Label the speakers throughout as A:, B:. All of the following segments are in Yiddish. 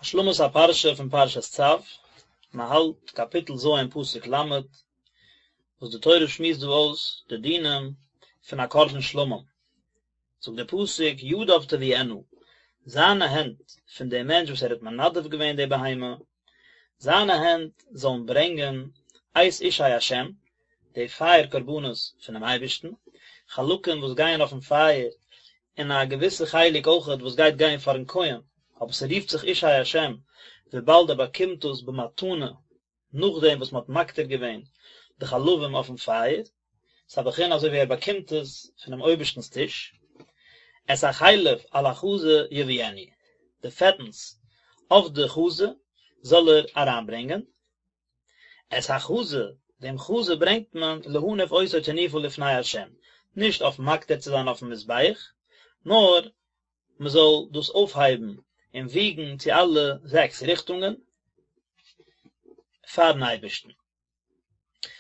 A: השלמת הפרשה פון פרשת צו, מען האלט קאפיטל ז' פסוק ל', וואס די תורה שמועסט דא אויס די דינים פון א קרבן שלמים, זאגט דער פסוק ידיו תביאינה, זיינע הענט פון דעם מענטש וואס ער האט מנדב געווען די בהמה, זיינע הענט זאלן ברענגען את אישי השם, די פייער קרבנות פונעם אייבערשטן, חלקים וואס גייען אויפן פייער, און א געוויסע חלק אויכעט וואס גייט גיין פארן כהן, אבער ס'רופט זיך אישי השם וויבאלד ער באקומט דאס במתנה נאכדעם וואס מ'האט מקטיר געווען די חלבים אויפן פייער, ס'איז א בחינה אזוי ווי ער באקומט עס פונעם אויבערשטנ'ס טיש, את החלב על החזה יביאנו, די פעטנס אויף די חזה זאל ער אריינברענגען, את החזה, דעם חזה ברענגט מען להניף אותו תנופה לפני ה', נישט אויף מקטיר צו זיין אויפן מזבח, נאר מען זאל דאס אויפהייבן און וויגן צו אלע זעקס ריכטונגען פארן אייבערשטן.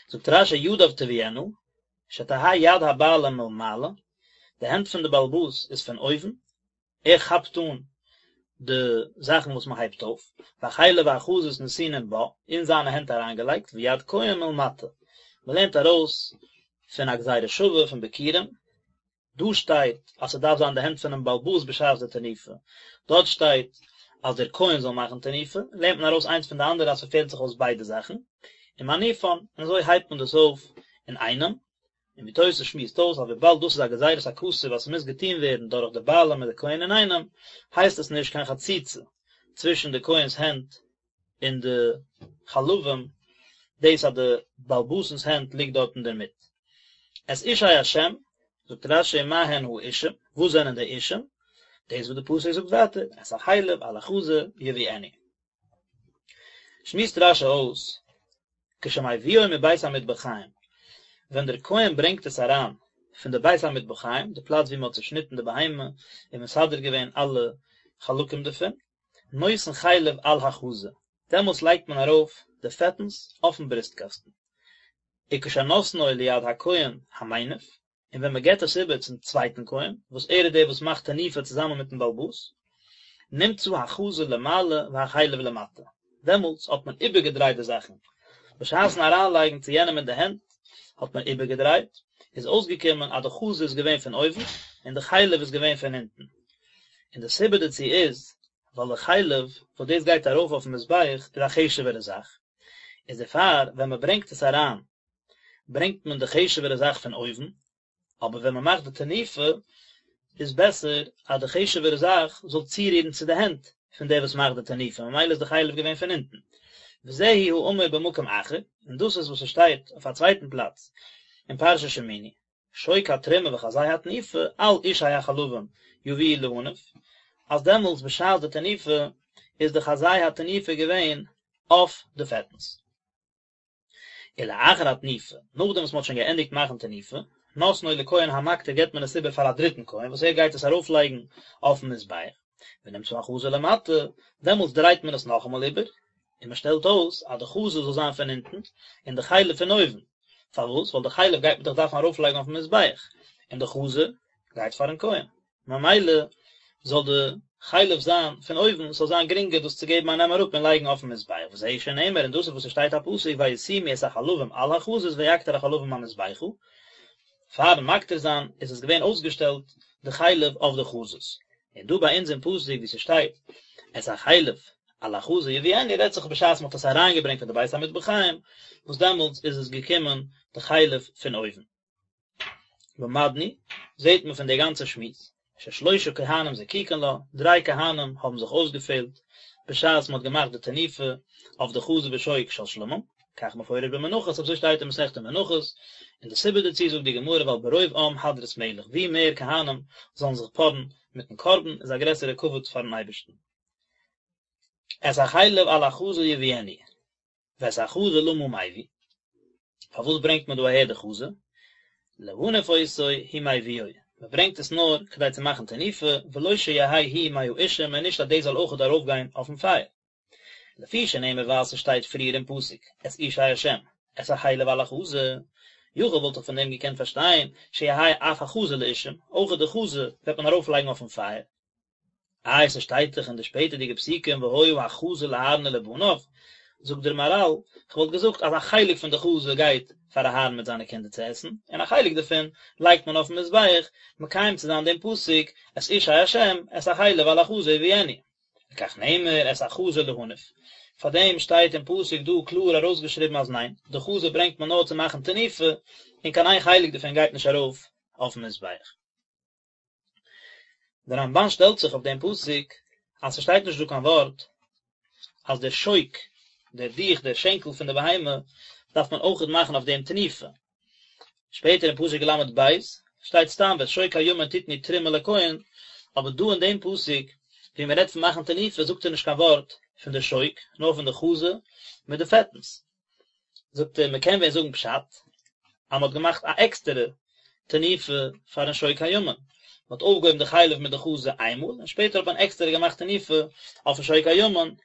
A: זאגט רש"י ידיו תביאינה, שתהא יד הבעלים מלמעלה, די הענט פון די בעל הבית איז פון אויבן, ער כאפט אן די זאכן וואס מען הייבט אויף, והחלב והחזות נתונים בה, אין זיינע הענט אריינגעלייגט, ויד כהן מלמטה, מען לערנט ארויס פון א גזירה שווה פון ביכורים, דא שטייט אז ס'דארף זיין די הענט פונעם בעל הבית בשעת די תנופה, דארט שטייט אז דער כהן זאל מאכן תנופה, לערנט מען ארויס איינס פון די אנדערע אז ס'פעלט זיך אויס ביידע זאכן, ומניפן, און אזוי הייבט מען דאס אויף אינאיינעם, און ווי תוס' שמועסט אויס אז וויבאלד דאס איז א גזירת הכתוב אז ס'מוז געטון ווערן דורך די בעלים מיט די כהן אינאיינעם, הייסט עס נישט קיין חציצה צווישן די כהן'ס הענט און די חלבים, דאס אז די בעל הבית'נס הענט ליגט דארט אינדערמיט. את אישי השם, זאגט רש"י מה הן האישים, וואס זענען די אישים? דאס וואס די פסוק זאגט ווייטער, את החלב על החזה יביאנו. שמועסט רש"י אויס, כשמביאו מבית המטבחיים, ווען דער כהן ברענגט עס אריין פון די בית המטבחיים, די פלאץ ווי מען האט צעשניטן די בהמה און מסדר געווען אלע חלקים דערפון, נותן חלב על החזה, דעמאלטס לייגט מען ארויף די פעטנס אויפן ברוסטקאסטן. וכשנותנו ליד הכהן המניף, און ווען מען געבט עס איבער צום צווייטן כהן, וואס ער איז דער וואס מאכט תנופה צוזאמען מיטן בעל הבית, נמצא החזה למעלה והחלב למטה, דעמאלטס האט מען איבערגעדרייט די זאכן, בשעת'ן אריינלייגן צו יענעם אין די הענט האט מען איבערגעדרייט, איז אויסגעקומען אז די חזה איז געווען פון אויבן און די חלב איז געווען פון אונטן, און די סיבה דערצו איז ווייל די חלב וואס דאס גייט ארויף אויפן מזבח איז א חשוב'ערע זאך, איז דערפאר ווען מען ברענגט עס אריין ברענגט מען די חשוב'ערע זאך פון אויבן, אבער ווען מען מאכט די תנופה איז בעסער אז די חשוב'ערע זאך זאל צורירן צו די הענט פון דער וואס מאכט די תנופה, ממילא איז די חלב געווען פון אונטן. וזהו האמור במקום אחר, און דאס איז וואס עס שטייט אויף א צווייטן פלאץ אין פרשת שמיני, שוק התרומה וחזה התנופה על אישי החלבים יביאו להניף, אז דעמאלטס בשעת די תנופה איז די חזה התנופה געווען אויף די פעטנס. ולאחר התנופה, נאכדעם וואס מען האט שוין געענדיגט מאכן תנופה, נותנו לכהן המקטיר געבט מען עס איבער פאר א דריטן כהן וואס ער גייט עס ארויפלייגן אויפן מזבח, ונמצא החזה למטה, דעמאלטס דרייט מען עס נאכאמאל איבער, און מען שטעלט אויס אז די חזה זאל זיין פון אונטן און די חלב פון אויבן, פארוואס? ווייל די חלב גייט מען דאך דארפן ארויפלייגן אויפן מזבח, און די חזה גייט פארן כהן. ממילא זאל די חלב זיין פון אויבן, ס'זאל זיין גרינגער דאס צו געבן א נעם אראפ און לייגן אויפן מזבח, וזהו שנאמר, און דאס איז וואס עס שטייט א פסוק וישימו את החלבים על החזות ויקטר החלבים המזבחה, פארן מקטיר זיין איז עס געווען אויסגעשטעלט די חלב אויף די חזות, און דא ביי אונז אין פסוק ווי ס'שטייט את החלב על החזה יביאנו רעדט זיך בשעת מ'האט עס אריינגעברענגט פון די בית המטבחיים, וואס דעמאלטס איז עס געקומען די חלב פון אויבן. למדנו, זעט מען פון די גאנצע שמועס, ששלושה כהנים זקוקין לה, דריי כהנים האבן זיך אויסגעפעלט בשעת מען האט געמאכט די תנופה אויף די חזה ושוק של שלמים, כך מפורש במנחות, אזוי שטייט אין מסכת מנחות, און די סיבה דערצו זאגט די גמרא ווייל ברוב עם הדרת מלך, ווי מער כהנים זאלן זיך פארן מיטן קרבן איז א גרעסערע כבוד פארן אייבערשטן. את החלב על החזה יביאנו. ואת החזה למה מביא, פארוואס ברענגט מען דא אהער די חזה? להניף אותו הוא מביאו, מען ברענגט עס נאר כדי צו מאכן תנופה, ולא שיהא הוא מהאישים און נישט אז דאס זאל אויכעט ארויפגיין אויפן פייער. לפי שנאמר ווייל ס'שטייט פריער אין פסוק את אישי השם, את החלב על החזה, יכול וואלט איך פון דעם געקענט פארשטיין שיהא אף החזה לאישים, אויכעט די חזה וועט מען ארויפלייגן אויפן פייער. איי ס'שטייט דאך אין די שפעטערדיגע פסוקים והיה החזה לאהרן ולבניו, זאגט דער מהרל, כ'וואלט געזאגט אז א חלק פון די חזה גייט פאר אהרן מיט זיינע קינדער צו עסן, און א חלק דערפון לייגט מען אויפן מזבח, מקיים צו זיין דעם פסוק את אישי השם את החלב על החזה יביאנו. לכך נאמר את החזה להניף. פאר דעם שטייט אין פסוק דא קלאר ארויסגעשריבן אז ניין, די חזה ברענגט מען נאר צו מאכן תנופה, און קיין איין חלק דערפון גייט נישט ארויף אויפן מזבח. דער רמבן שטעלט זיך אויף דעם פסוק אז ס'שטייט נישט דא קיין ווארט אז דער שוק, דער דיך, דער שענקל פון די בהמה, דארף מען אויכעט מאכן אויף דעם תנופה. שפעטער אין פסוק ל"ב שטייט סתם ואת שוק הימין תתנו תרומה לכהן, אבער דא אין דעם פסוק ווי מען רעדט פון מאכן תנופה זאגט ער נישט קיין ווארט פון די שוק, נאר פון די חזה מיט די פעטנס. זאגט ער מען קען ווען זאגן פשט אז מען האט געמאכט א עקסטערע תנופה פארן שוק הימין, מען האט אויפגעהויבן די חלב מיט די חזה איינמאל און שפעטער האט מען עקסטערע געמאכט תנופה אויפן שוק הימין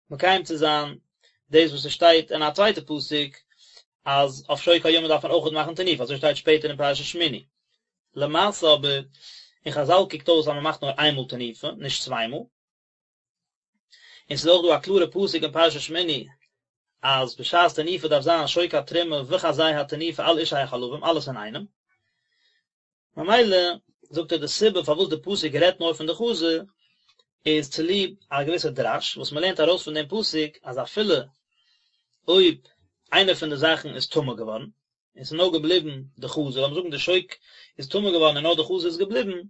A: מקיים צו זיין דאס וואס עס שטייט אין א צווייטע פסוק אז אויף שוק הימין דארף מען אויכעט מאכן תנופה אזוי שטייט שפעטער אין פרשת שמיני. למעשה אבער אין חזל קוקט אויס אז מען מאכט נאר איינמאל תנופה נישט צוויי מאל. און ס'איז אויך דא א קלארע פסוק אין פרשת שמיני אז בשעת תנופה דארף זיין שוק התרומה וחזה התנופה על אישי החלבים אלעס אינאיינעם. ממילא זאגט ער די סיבה פארוואס די פסוק רעדט נאר פון די חזה איז צוליב א געוויסע דרש וואס מ'לערנט ארויס פון דעם פסוק אז אפילו אויב איינע פון די זאכן איז טמא געווארן און ס'איז נאר געבליבן די חזה, לאמיר זאגן די שוק איז טמא געווארן און נאר די חזה איז געבליבן,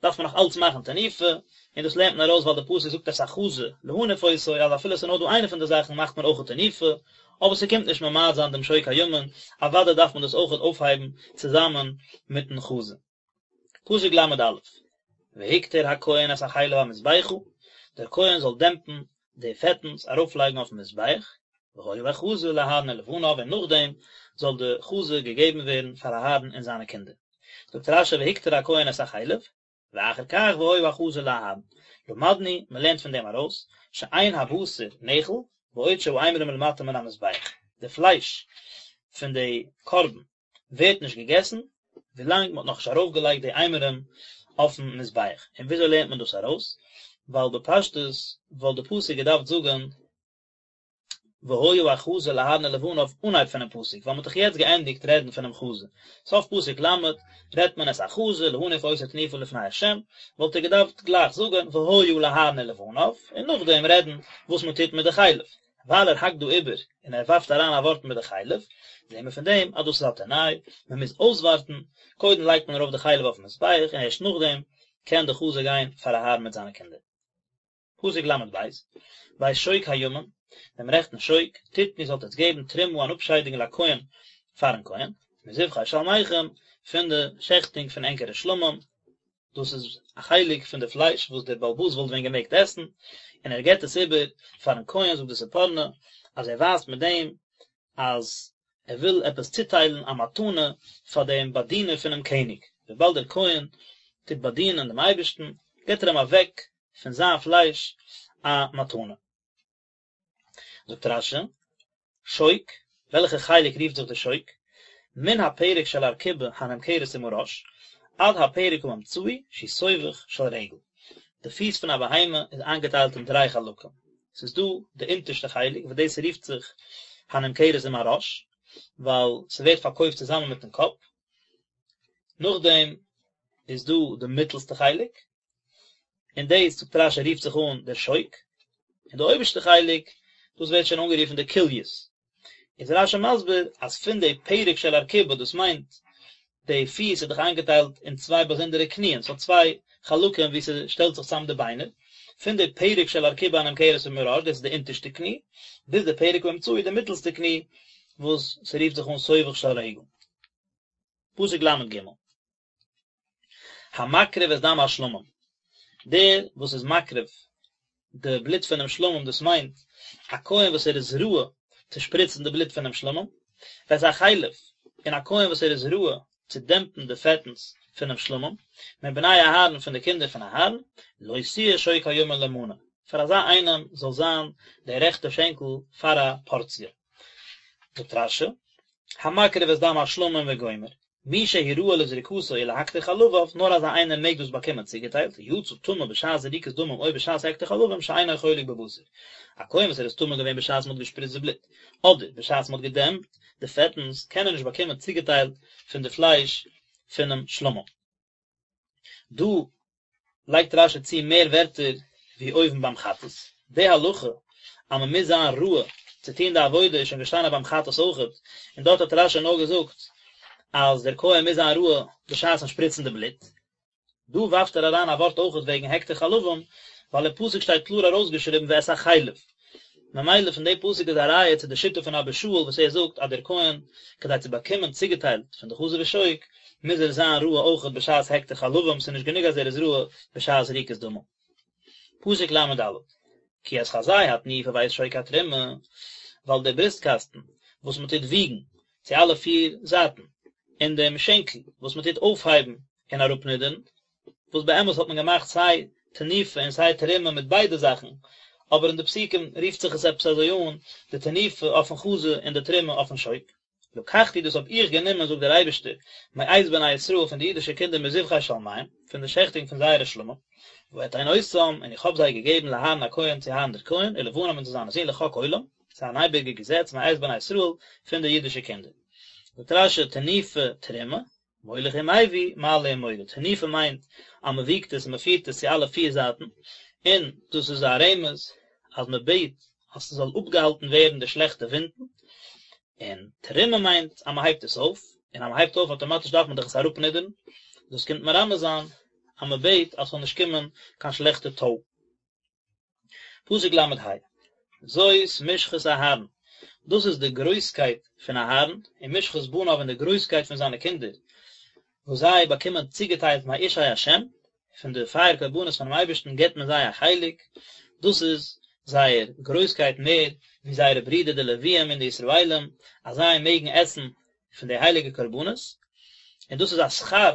A: דארף מען נאך אלץ מאכן תנופה, און דאס לערנט מען ארויס ווייל די פסוק זאגט את החזה להניף אותו, אז אפילו ס'איז נאר דא איינע פון די זאכן מאכט מען אויכעט תנופה, אבער ס'קומט נישט ממעט זיין דעם שוק הימין, אוודאי דארף מען דאס אויכעט אויפהייבן צוזאמען מיטן חזה. פסוק ל"א, והקטיר הכהן את החלב המזבחה, דער כהן זאל דעמפן די פעטנס ארויפלייגן אויפן מזבח, והיה החזה לאהרן ולבניו און נאכדעם זאל די חזה געגעבן ווערן פאר אהרן און זיינע קינדער. זאגט רש"י והקטיר הכהן את החלב, ואחר כך והיה החזה לאהרן. למדנו, מען לערנט פון דעם ארויס, שאין הבשר נאכל, בעוד שהאימורים למטה מן המזבח. די פלייש פון די קרבן ווערט נישט געגעסן ווילאנג מען האט נאכנישט ארויפגעלייגט די אימורים אויפן מזבח, און וויאזוי לערנט מען דאס ארויס? ווייל בפשטות וואלט די פסוק געדארפט זאגן והיה החזה לאהרן ולבניו אנהייב פונעם פסוק, ווייל מען האט דאך יעצט געענדיגט רעדן פונעם חזה, סוף פסוק ל' רעדט מען את החזה להניף אותו תנופה לפני ה', וואלט ער געדארפט גלייך זאגן והיה לאהרן ולבניו, און נאכדעם רעדן וואס מען טוט מיט די חלב. ווייל ער האקט דא איבער און ער ווארפט אריין א ווארט מיט די חלב, זעהן מיר פון דעם אז דאס איז א תנאי, מען מוז אויסווארטן, קודם לייגט מען ארויף די חלב אויפן מזבח און ערשט נאכדעם קען די חזה גיין פאר אהרן מיט זיינע קינדער. פסוק ל"ב, ואת שוק הימין, דעם רעכטן שוק, תתנו זאלט עטס געבן תרומה אן אפשיידונג לכהן פארן כהן, מזבחי שלמיכם, פון די שעכטונג פון ענקערע שלמים, דאס איז א חלק פון די פלייש וואס דער בעל הבית וואלט ווען געמעגט עסן, און ער געבט עס איבער פארן כהן, זאגט די ספורנו אז ער ווייזט מיט דעם אז ער וויל עפעס צוטיילן א מתנה פאר דעם באדינער פונעם קעניג, וויבאלד דער כהן טוט באדינען דעם אייבערשטן, געבט ער אים אוועק פון זיין פלייש א מתנה. זאגט רש"י, שוק, וועלכע חלק רופט זיך די שוק? מן הפרק של ארכובה הנמכרת עם הראש, עד הפרק האמצעי שהוא סובך של רגל. די פיס פון א בהמה איז איינגעטיילט אין דריי חלקים. ס'איז דא די אונטערשטע חלק וואס דאס רופט זיך הנמכרת עם הראש, ווייל ס'ווערט פארקויפט צוזאמען מיטן קאפ. נאכדעם איז דא די מיטלסטע חלק, און דאס זאגט רש"י רופט זיך אן דער שוק, און די אויבערשטע חלק, דאס ווערט שוין אנגערופן די כליות. איז רש"י מסביר אז פון די פרק של ארכובה, דאס מיינט די פיס איז דאך איינגעטיילט אין צוויי באזונדערע קניען, ס'האט צוויי חלקים וואו ס'שטעלט זיך צאם די ביינער, פון די פרק של ארכובה הנמכרת עם הראש, דאס איז די אונטערשטע קני, ביז די פרק האמצעי, די מיטלסטע קני, וואס ס'רופט זיך אן סובך של רגל. פסוק ל"ג. המקריב את דם השלמים, דער וואס איז מקריב די בלוט פונעם שלמים, דאס מיינט א כהן וואס ער איז ראוי צו שפריצן די בלוט פונעם שלמים, ואת החלב, און א כהן וואס ער איז ראוי צו דעמפן די פעטנס פונעם שלמים, מבני אהרן פון די קינדער פון אהרן, לו תהיה שוק הימין למנה, פאר אזא איינעם זאל זיין דער רעכטע שענקל פאר א פארציע. זאגט רש"י, המקריב את דם השלמים וגומר. מי שהוא ראוי לזריקתו ולהקטיר חלביו, נאר אזא איינער מעג דאס באקומען צוגעטיילט, יצא טמא בשעת זריקת דמים או בשעת הקטר חלבים שאינו חולק בבשר. א כהן וואס ער איז טמא געווען בשעת מען האט געשפריצט די בלוט, אדער בשעת מען האט געדעמפט די פעטנס, קען ער נישט באקומען צוגעטיילט פון די פלייש פונעם שלמים. דא לייגט רשי צו מער ווערטער ווי אויבן ביים חטאת. די הלכה אז מען מוז זיין ראוי צו טון די עבודה איז שוין געשטאנען ביים חטאת אויכעט, און דארט האט רשי נאר געזאגט אז דער כהן מוז זיין ראוי בשעת'ן שפריצן די בלוט. דא ווארפט ער אריין א ווארט אויכעט וועגן הקטר חלבים, ווייל אין פסוק שטייט קלאר ארויסגעשריבן ואת החלב. ממילא פון די פסוק איז א ראיה צו די שיטה פון אבא שאול וואס ער זאגט אז דער כהן כדי צו באקומען צוגעטיילט פון די חזה ושוק מוז ער זיין ראוי אויכעט בשעת הקטר חלבים ס'איז נישט גענוג אז ער איז ראוי בשעת זריקת דמים. פסוק לד כי את חזה התנופה ואת שוק התרומה ווייל דער בריסטקאסטן וואס מען טוט וויגן צו אלע פיר זייטן און דעם שענקל וואס מען טוט אויפהייבן און אראפנידערן וואס באמת האט מען געמאכט סיי תנופה און סיי תרומה מיט ביידע זאכן, אבער אין די פסוקים רופט זיך עס עפעס אזוי אן, די תנופה אויפן חזה און די תרומה אויפן שוק. לקחתי דאס האב איך גענומען זאגט דער אייבערשטער, מאת בני ישראל פון די אידישע קינדער מזבחי שלמיהם, פון די שעכטונג פון זייערע שלמים, ואתן אותם, און איך האב זיי געגעבן לאהרן הכהן צו אהרן דער כהן, ולבניו און צו זיינע זין לחוק עולם, ס'איז אן אייביגע געזעץ מאת בני ישראל פון די אידישע קינדער. זאגט רשי תנופה תרומה, מוליך ומביא, מעלה ומוריד. תנופה מיינט אז מען וויגט עס און מען פירט עס צו אלע פיר זייטן, און דאס איז א רמז אז מען בעט אז ס'זאל אפגעהאלטן ווערן די שלעכטע ווינטן, און תרומה מיינט אז מען הייבט עס אויף, און אז מען הייבט אויף אויטאמאטיש דארף מען דאך עס אראפנידערן, דאס קומט מרמז זיין אז מען בעט אז ס'זאל נישט קומען קיין שלעכטע טוי. פסוק ל"ה, זאת משחת אהרן, דאס איז די גרויסקייט פון אהרן, ומשחת בניו און די גרויסקייט פון זיינע קינדער, וואס זיי באקומען צוגעטיילט מאשי השם, פון די פייער קרבנות פונעם אייבערשטן געבט מען זיי א חלק, דאס איז זייער גרויסקייט מער ווי זייערע ברידער די לוויים און די ישראלים, אז זיי מעגן עסן פון די הייליגע קרבנות, און דאס איז א שכר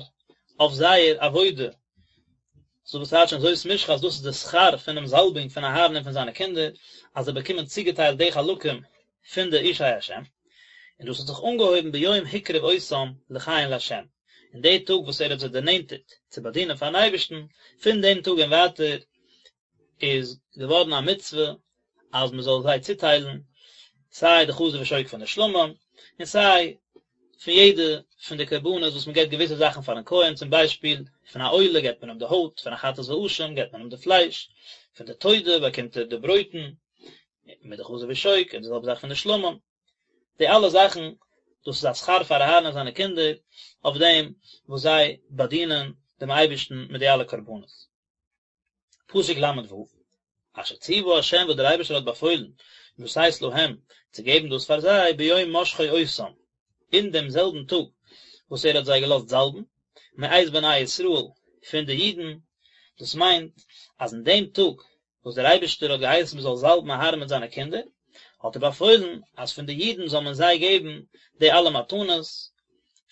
A: אויף זייער עבודה, סאו וואס טייטשן זאת משחת אז דאס איז די שכר פונעם זאלבונג פון אהרן און פון זיינע קינדער, אז זיי באקומען צוגעטיילט די חלקים פון די אשי השם, און דאס האט זיך אנגעהויבן ביום הקריב אותם לכהן לה', אין די טאג וואס ער האט זיי דערנענטערט צו באדינען פארן אייבערשטן, פון דעם טאג און ווייטער איז געווארן א מצוה אז מען זאל זיי צוטיילן סיי די חזה ושוק פון די שלמים, און סיי פון יעדע פון די קרבנות וואס מען געבט געוויסע זאכן פארן כהן, צום ביישפיל פון א עולה געבט מען אים די הויט, פון א חטאת ואשם געבט מען אים די פלייש, פון די תודה באקומט ער די ברויטן מיט די חזה ושוק, און די זעלבע זאך פון די שלמים. די אלע זאכן, דאס איז א שכר פאר אהרן און זיינע קינדער אויף דעם וואס זיי באדינען דעם אייבערשטן מיט די אלע קרבנות. פסוק ל"ו, אשר ציוה ה' וואס דער אייבערשטער האט באפוילן, לתת להם, צו געבן דאס פאר זיי, ביום משחו אותם, אין דעם זעלבן טאג וואס ער האט זיי געלאזט זאלבן, מאת בני ישראל, פון די אידן, דאס מיינט, אז אין דעם טאג וואס דער אייבערשטער האט געהייסן מען זאל זאלבן אהרן מיט זיינע קינדער, האט ער באפוילן אז פון די אידן זאל מען זיי געבן די אלע מתנות,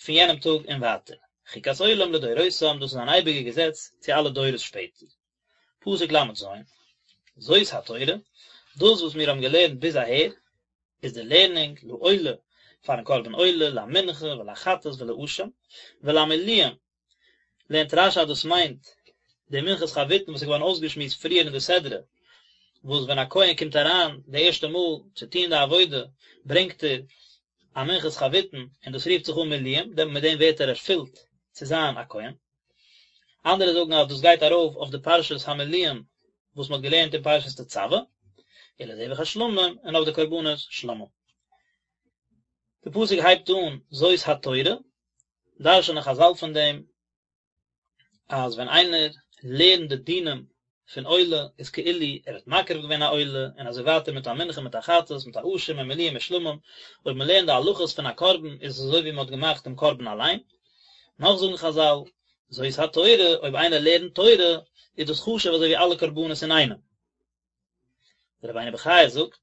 A: פון יענעם טאג און ווייטער. חוקת עולם לדורותם, דאס איז אן אייביגע געזעץ צו אלע דורות שפעטער. פסוק ל"ז, זאת התורה, דאס וואס מיר האבן געלערנט ביז אהער, איז די לערנונג לעולה, פארן קרבן עולה, למנחה ולחטאת ולאשם, ולמלואים, לערנט רש"י אז דאס מיינט די מנחת חביתין וואס איז געווארן אויסגעשמועסט פריער אין די סדרה, וואס ווען א כהן קומט אריין די ערשטע מאל צו טון די עבודה ברענגט ער א מנחת חביתין און דאס רופט זיך אן מלואים, מיט דעם ווערט ער ערפילט צו זיין א כהן. אנדערע זאגן אז דאס גייט ארויף אויף די פרשת המלואים וואס מען האט געלערנט אין פרשת תצוה, ולזבח השלמים און אויף די קרבנות שלמים. די פסוק הייבט אן זאת התורה, דרש'נען חז"ל פון דעם אז ווען איינער לערנט די דינים פון עולה איז כאילו ער האט מקריב געווען א עולה און אזוי ווייטער מיט א מנחה מיט א חטאת מיט א אשם און מלואים און שלמים, אויב מען לערנט די הלכות פון א קרבן איז עס אזוי ווי מען האט געמאכט דעם קרבן אליין. נאך זאגן חז"ל, זאת התורה, אויב איינער לערנט תורה איז דאס חשוב אזוי ווי אלע קרבנות אינאיינעם. דער רבינו בחיי זאגט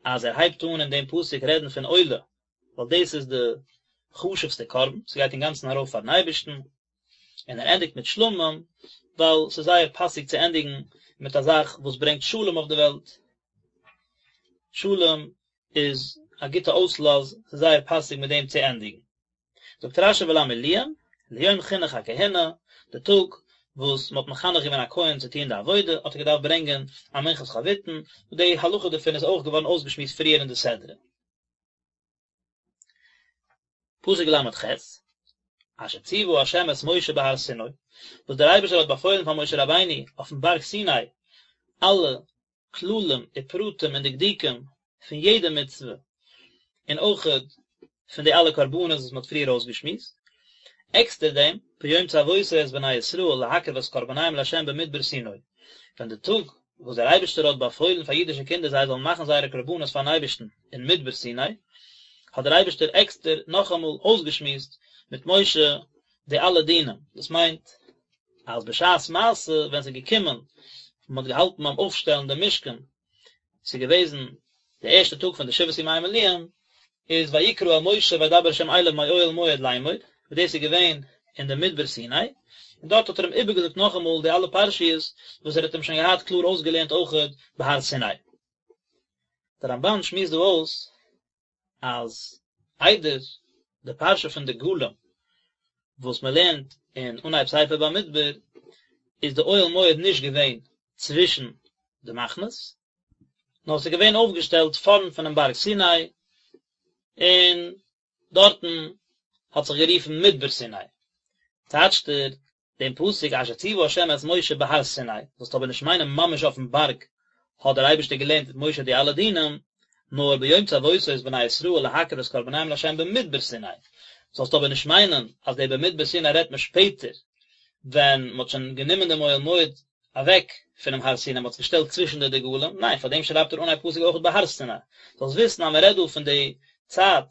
A: אז ער הייבט אן אין דעם פסוק רעדן פון עולה, ווייל דאס איז די חשוב'סטע קרבן, ס'גייט אינגאנצן ארויף פאר'ן אייבערשטן, און ער ענדיגט מיט שלמים, ווייל ס'איז זייער פאסיג צו ענדיגן מיט א זאך וואס ברענגט שלום אויף די וועלט, שלום איז א גוטע אויסלאז, ס'איז זייער פאסיג מיט דעם צו ענדיגן. זאגט רשי ולמילואים, ליום חינוך הכהונה, די טאג וואס מען האט מחנך געווען א כהן צו טון די עבודה, האט ער געדארפט ברענגען א מנחת חביתין, וואס די הלכה דערפון איז אויך געווארן אויסגעשמועסט פריער אין די סדרה. פסוק ל"ח, אשר ציוה ה' את משה בהר סיני, וואס דער אייבערשטער האט באפוילן פאר משה רבינו אויפן בארג סיני, אלע כללים ופרטים און דקדוקים פון יעדע מצוה, און אויכעט פון די אלע קרבנות וואס מען האט פריער אויסגעשמועסט. עקסטער דעם, ביום צוותו את בני ישראל להקריב את קרבניהם לה' במדבר סיני, ווען די טאג וואס דער אייבערשטער האט באפוילן פאר אידישע קינדער זיי זאלן מאכן זייערע קרבנות פארן אייבערשטן אין מדבר סיני, האט דער אייבערשטער עקסטער נאכאמאל אויסגעשמועסט מיט משה די אלע דינים, דאס מיינט אז בשעת מעשה ווען ס'איז געקומען מען האט געהאלטן ביים אויפשטעלן דעם משכן, ס'איז געוועזן די ערשטע טאג פון די שבעת ימי מילואים, איז ויקרא אל משה וידבר ה' אליו מאוהל מועד לאמור, וואס דאס איז געווען אין די מדבר סיני, און דארט האט ער אים איבערגעזאגט נאכאמאל די אלע פרשיות וואס ער האט אים שוין געהאט קלאר אויסגעלערנט אויכעט בהר סיני. דער רמבן שמועסט דא אויס אז איידער די פרשה פון דגלים וואס מען לערנט אין אנהייב ספר במדבר איז די אוהל מועד נישט געווען צווישן די מחנות, נאר עס איז געווען אויפגעשטעלט פארנט פונעם בארג סיני, און דארטן האט זיך גערופן מדבר סיני. טייטשט ער דעם פסוק אשר ציוה ה' את משה בהר סיני, זאלסט אבער נישט מיינען ממש אויפן בארג האט דער אייבערשטער געלערנט מיט משה די אלע דינים, נאר ביום צוותו את בני ישראל להקריב את קרבניהם לה' במדבר סיני, זאלסט אבער נישט מיינען אז דער במדבר סיני רעדט מען שפעטער ווען מען האט שוין גענומען דעם אוהל מועד אוועק פונעם הר סיני, מען האט עס געשטעלט צווישן די דגלים, ניין, פאר דעם שרייבט ער אנהייב פסוק אויך בהר סיני, זאלסט וויסן אז מען רעדט דא פון די צייט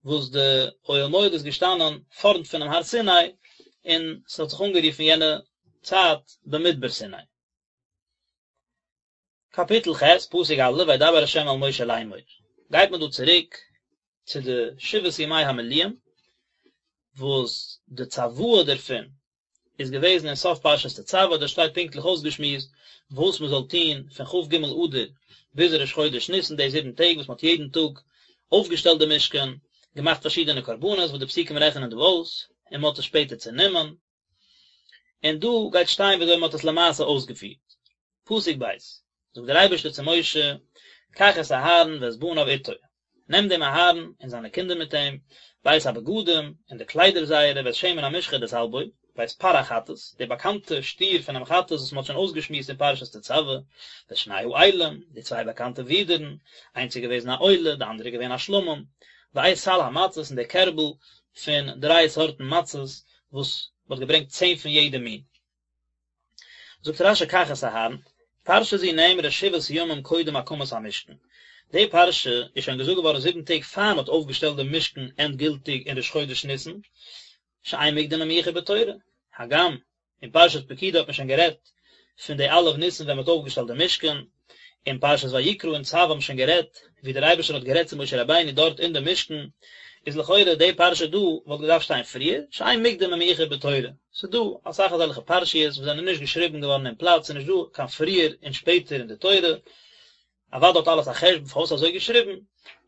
A: וואס די אוהל מועד איז געשטאנען פארנט פונעם הר סיני, און ס'האט זיך אנגערופן יענע צייט במדבר סיני. קאפיטל ח', פסוק א', וידבר ה' אל משה לאמור, גייט מען דא צוריק צו די שבעת ימי המילואים, וואס די צוואה דערפון איז געוועזן אין סוף פרשת תצוה, דארט שטייט פונקטליך אויסגעשמועסט וואס מען זאל טון פון כ"ג אדר ביז ראש חודש ניסן, די זיבן טעג וואס מען האט יעדן טאג אויפגעשטעלט די משכן, געמאכט פארשידענע קרבנות וואס די פסוקים רעכענען דא אויס, און מען האט עס שפעטער צענומען. און דא גייט שטיין ווי אזוי מען האט עס למעשה אויסגעפירט. פסוק ב', זאגט דער אייבערשטער צו משה, קח את אהרן ואת בניו איתו, נעם דעם אהרן און זיינע קינדער מיט אים, ואת הבגדים, און די קליידער זייערע, ואת שמן המשחה דער זאלב אויל, ואת פר החטאת, די באקאנטע שטיר פונעם חטאת וואס מען האט שוין אויסגעשמועסט אין פרשת תצוה, ואת שני האילים, די צוויי באקאנטע ווידערן, איינס איז געוועזן א עולה, די אנדערע איז געווען א שלמים, ואת סל המצות, און די קערבל פון דריי סארטן מצות, וואס מען האט געברענגט צען פון יעדע מין. זאגט רש"י קח את אהרן, פרשה זו נאמרה שבעת ימים קודם הקמת המשכן, די פרשה איז שוין געזאגט געווארן זיבן טעג פאר מען האט אויפגעשטעלט דעם משכן ענדגילטיג אין ראש חודש ניסן, שאין מוקדם ומאוחר בתורה, הגם אין פרשת פקודי האט מען שוין גערעדט פון די א' ניסן ווען מען האט אויפגעשטעלט די משכן, אין פרשת ויקרא און צו האבן שוין גערעדט ווי דער אייבערשטער האט גערעדט צו משה רבינו דארט אין די משכן, איז לכאורה די פרשה דא וואלט געדארפט שטיין פריער, שאין מוקדם ומאוחר בתורה, ס'איז דא אסאך אזעלכע פרשיות וואס זענען נישט געשריבן געווארן אין פלאץ, ס'איז נישט דא קיין פריער און שפעטער אין די תורה, אוודאי האט אלעס א חשבון פארוואס אזוי געשריבן,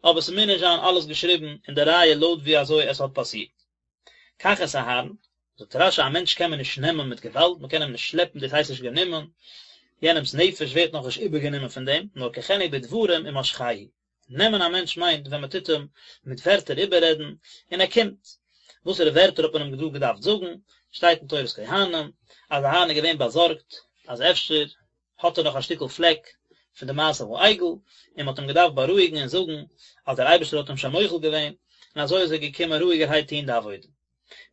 A: אבער ס'מוז נישט זיין אלעס געשריבן אין די רייע לויט ווי אזוי עס האט פאסירט. קח את אהרן, זאגט רש"י א מענטש קען מען נישט נעמען מיט געוואלד, מען קען אים נישט שלעפן דאס הייסט נישט גענומען, יענעמס נפש ווערט נאכנישט איבערגענומען פון דעם, נאר קחנו בדברים ומשכהו, נעמען א מענטש מיינט ווען מען טוט אים מיט ווערטער איבעררעדן און ער קומט, וואסערע ווערטער האט מען אים דא געדארפט זאגן, שטייט אין תורת כהנים אז אהרן איז געווען באזארגט אז אפשר האט ער נאך א שטיקל פלעק פון די מעשה העגל, און מען האט אים געדארפט בארואיגן און זאגן אז דער אייבערשטער האט אים שוין מוחל געווען, און אזוי איז ער געקומען רואיגערהייט טון די עבודה.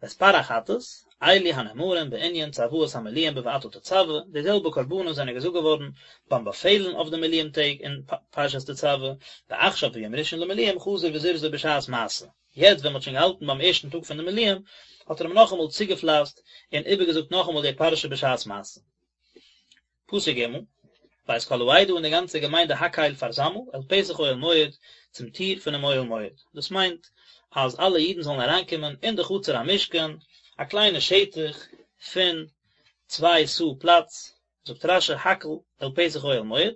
A: ואת פר החטאת, אלו הנאמרים בענין צוואת המילואים בואתה תצוה, די זעלבע קרבנות זענען געזאגט געווארן ביים באפעלן אויף די מילואים טעג אין פרשת תצוה, ועכשיו ביום ראשון למילואים חזר וזרזו בשעת מעשה. יעצט ווען מען האט שוין געהאלטן ביים ערשטן טאג פון די מילואים, האט ער אים נאכאמאל צוגעפלייסט און איבערגעזאגט נאכאמאל די פרשה בשעת מעשה. פסוק ג', ואת כל העדה און די גאנצע געמיינדע הקהל פארזאמל אל פתח אוהל מועד, צום טיר פונעם אוהל מועד. דאס מיינט אז אלע אידן זאלן אריינקומען אין די חצר המשכן, א קליינע שטח פון צוויי סאה פלאץ, זאגט רש"י הקהל אל פתח אוהל מועד,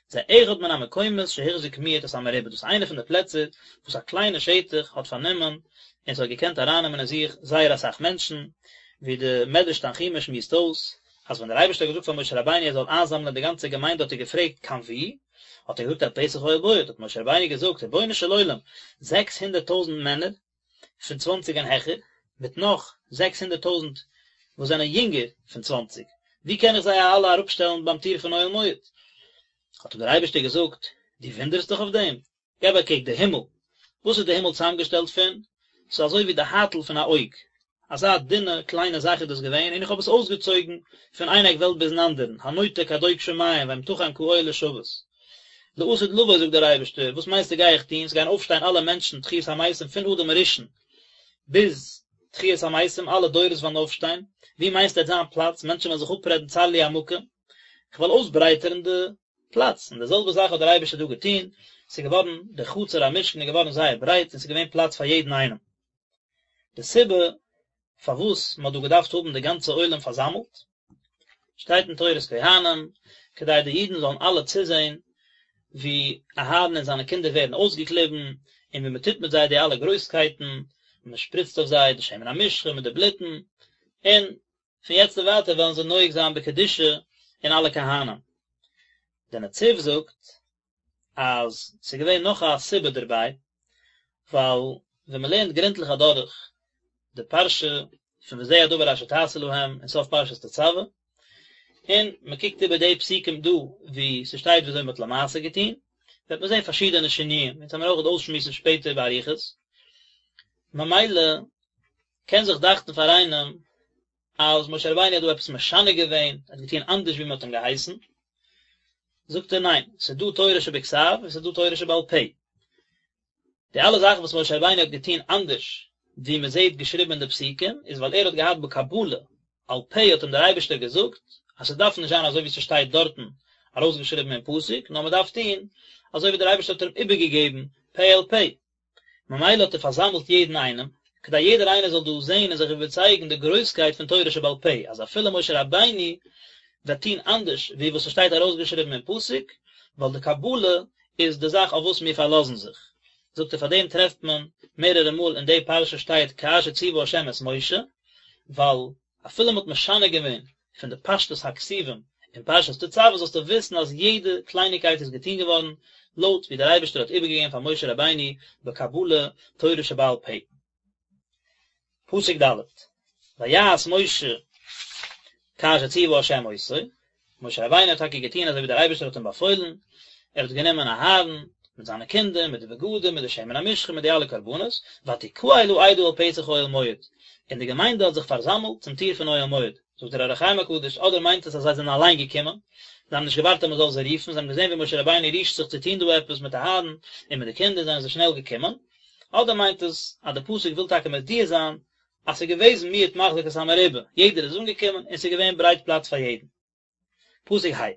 A: זה אחד מן המקומות שהחזיק מועט את המרובה, דאס איז איינע פון די פלעצער וואס א קליינע שטח האט פארנומען. און ס'האט געקענט ארייננעמען אין זיך זייער אסאך מענטשן, ווי די מדרש תנחומא שמועסט אויס, אז ווען דער אייבערשטער האט געזאגט פאר משה רבינו ער זאל איינזאמלען די גאנצע געמיינדע האט ער געפרעגט קיין וואו? האט ער געזאגט אל פתח אוהל מועד, האט משה רבינו געזאגט רבונו של עולם, 600 טויזנט מענער פון צוואנציג און העכער, מיט נאך 600 טויזנט וואס זענען יונגער פון צוואנציג, ווי קען איך זיי אלע אראפשטעלן ביים טיר פון אוהל מועד? האט אים דער אייבערשטער געזאגט, דו וואונדערסט דיך אויף דעם? געב א קוק די הימל, וואס איז די הימל צוזאמגעשטעלט פון? ס'איז אזוי ווי די הייטל פון א אויג, אזא דינע קליינע זאך איז דאס געווען, און איך האב עס אויסגעצויגן פון איין עק וועלט ביזן אנדערן, הנוטה כדוק שמים ואמתחם כאוהל לשבת. לעתיד לבוא זאגט דער אייבערשטער, וואס מיינסטו גיי איך טון, ס'גייען אויפשטיין אלע מענטשן תחיית המתים פון אדם הראשון ביז תחיית המתים, אלע דורות וועלן אויפשטיין, ווי מיינסטו וועט זיין פלאץ, מענטשן וועלן זיך אפרעדן צר לי המקום, איך וועל אויסברייטערן די פלאץ, און די זעלבע זאך האט דער אייבערשטער דא געטון, ס'איז געווארן, דער חצר המשכן איז געווארן זייער ברייט און ס'איז געווען פלאץ פאר יעדן איינעם. די סיבה פארוואס מ'האט דא געדארפט האבן די גאנצע עולם פארזאמלט, שטייט אין תורת כהנים, כדי די אידן זאלן אלע צוזען ווי אהרן און זיינע קינדער ווערן אויסגעקליבן, און ווי מ'טוט מיט זיי די אלע גרויסקייטן, און מ'שפריצט אויף זיי די שמן המשחה מיט די בלוטן, און פון יעצט און ווייטער וועלן זיי נוהג זיין בקדושה אין אלע כהנים. דער נציב זאגט אז ס'איז געווען נאך א סיבה דערביי, ווייל ווען מ'לערנט גרונטליך אדורך די פרשה פון וזה הדבר אשר תעשה להם אין סוף פרשת תצוה, און מ'קוקט איבער די פסוקים דא וואו ס'שטייט וויאזוי מ'האט למעשה געטון, וועט מען זען פארשידענע שינויים, אונז וועלן מיר אויך אויסשמועסן שפעטער באריכות. ממילא קען זיך דאכטן פאר איינעם אז משה רבינו האט דא עפעס משנה געווען, ער האט געטון אנדערש ווי מען האט אים געהייסן, זאגט ער ניין, ס'איז דא תורה שבכתב און ס'איז דא תורה שבעל פה. די אלע זאכן וואס משה רבינו האט געטון אנדערש ווי מען זעט געשריבן אין די פסוקים, איז ווייל ער האט געהאט בקבלה, על פה האט אים דער אייבערשטער געזאגט אז ס'דארף נישט זיין אזוי ווי ס'שטייט דארטן ארויסגעשריבן אין פסוק, נאר מען דארף טון אזוי ווי דער אייבערשטער האט אים איבערגעגעבן פה אל פה. ממילא האט ער פארזאמלט יעדן איינעם, כדי יעדער איינער זאל דא זען און זיך איבערצייגן די גרויסקייט פון תורה שבעל פה, אז אפילו משה רבינו וועט טון אנדערש ווי וואס עס שטייט ארויסגעשריבן אין פסוק, ווייל די קבלה איז די זאך אויף וואס מיר פארלאזן זיך. זאגט ער פאר דעם טרעפט מען מערערע מאל אין די פרשה שטייט כאשר ציוה ה' את משה, ווייל אפילו מ'האט משנה געווען פון די פשטות הכתובים אין פרשת תצוה זאלסטו וויסן אז יעדע קלייניקייט איז געטון געווארן לויט ווי דער אייבערשטער האט איבערגעגעבן פאר משה רבינו בקבלה תורה שבעל פה. פסוק ד' ויעש משה כאשר ציוה ה' אותו, משה רבינו האט טאקע געטון אזוי ווי דער אייבערשטער האט אים באפוילן, ער האט גענומען אהרן מיט זיינע קינדער, מיט די בגדים, מיט די שמן המשחה, מיט די אלע קרבנות, ותקהל העדה אל פתח אוהל מועד, און די געמיינדע האט זיך פארזאמלט צום טיר פון אוהל מועד. זאגט דער אור החיים הקדוש, אדער מיינט עס אז זיי זענען אליין געקומען, זיי האבן נישט געווארט אז מען זאל זיי רופן, זיי האבן געזען ווי משה רבינו רישט זיך צו טון דא עפעס מיט אהרן און מיט די קינדער, זענען זיי שנעל געקומען, אדער מיינט עס אז די פסוק וויל טאקע מודיע זיין אז ס'איז געוועזן מיעוט מחזיק את המרובה, יעדער איז אנגעקומען און ס'איז געווען ברייט פלאץ פאר יעדן. פסוק ה'.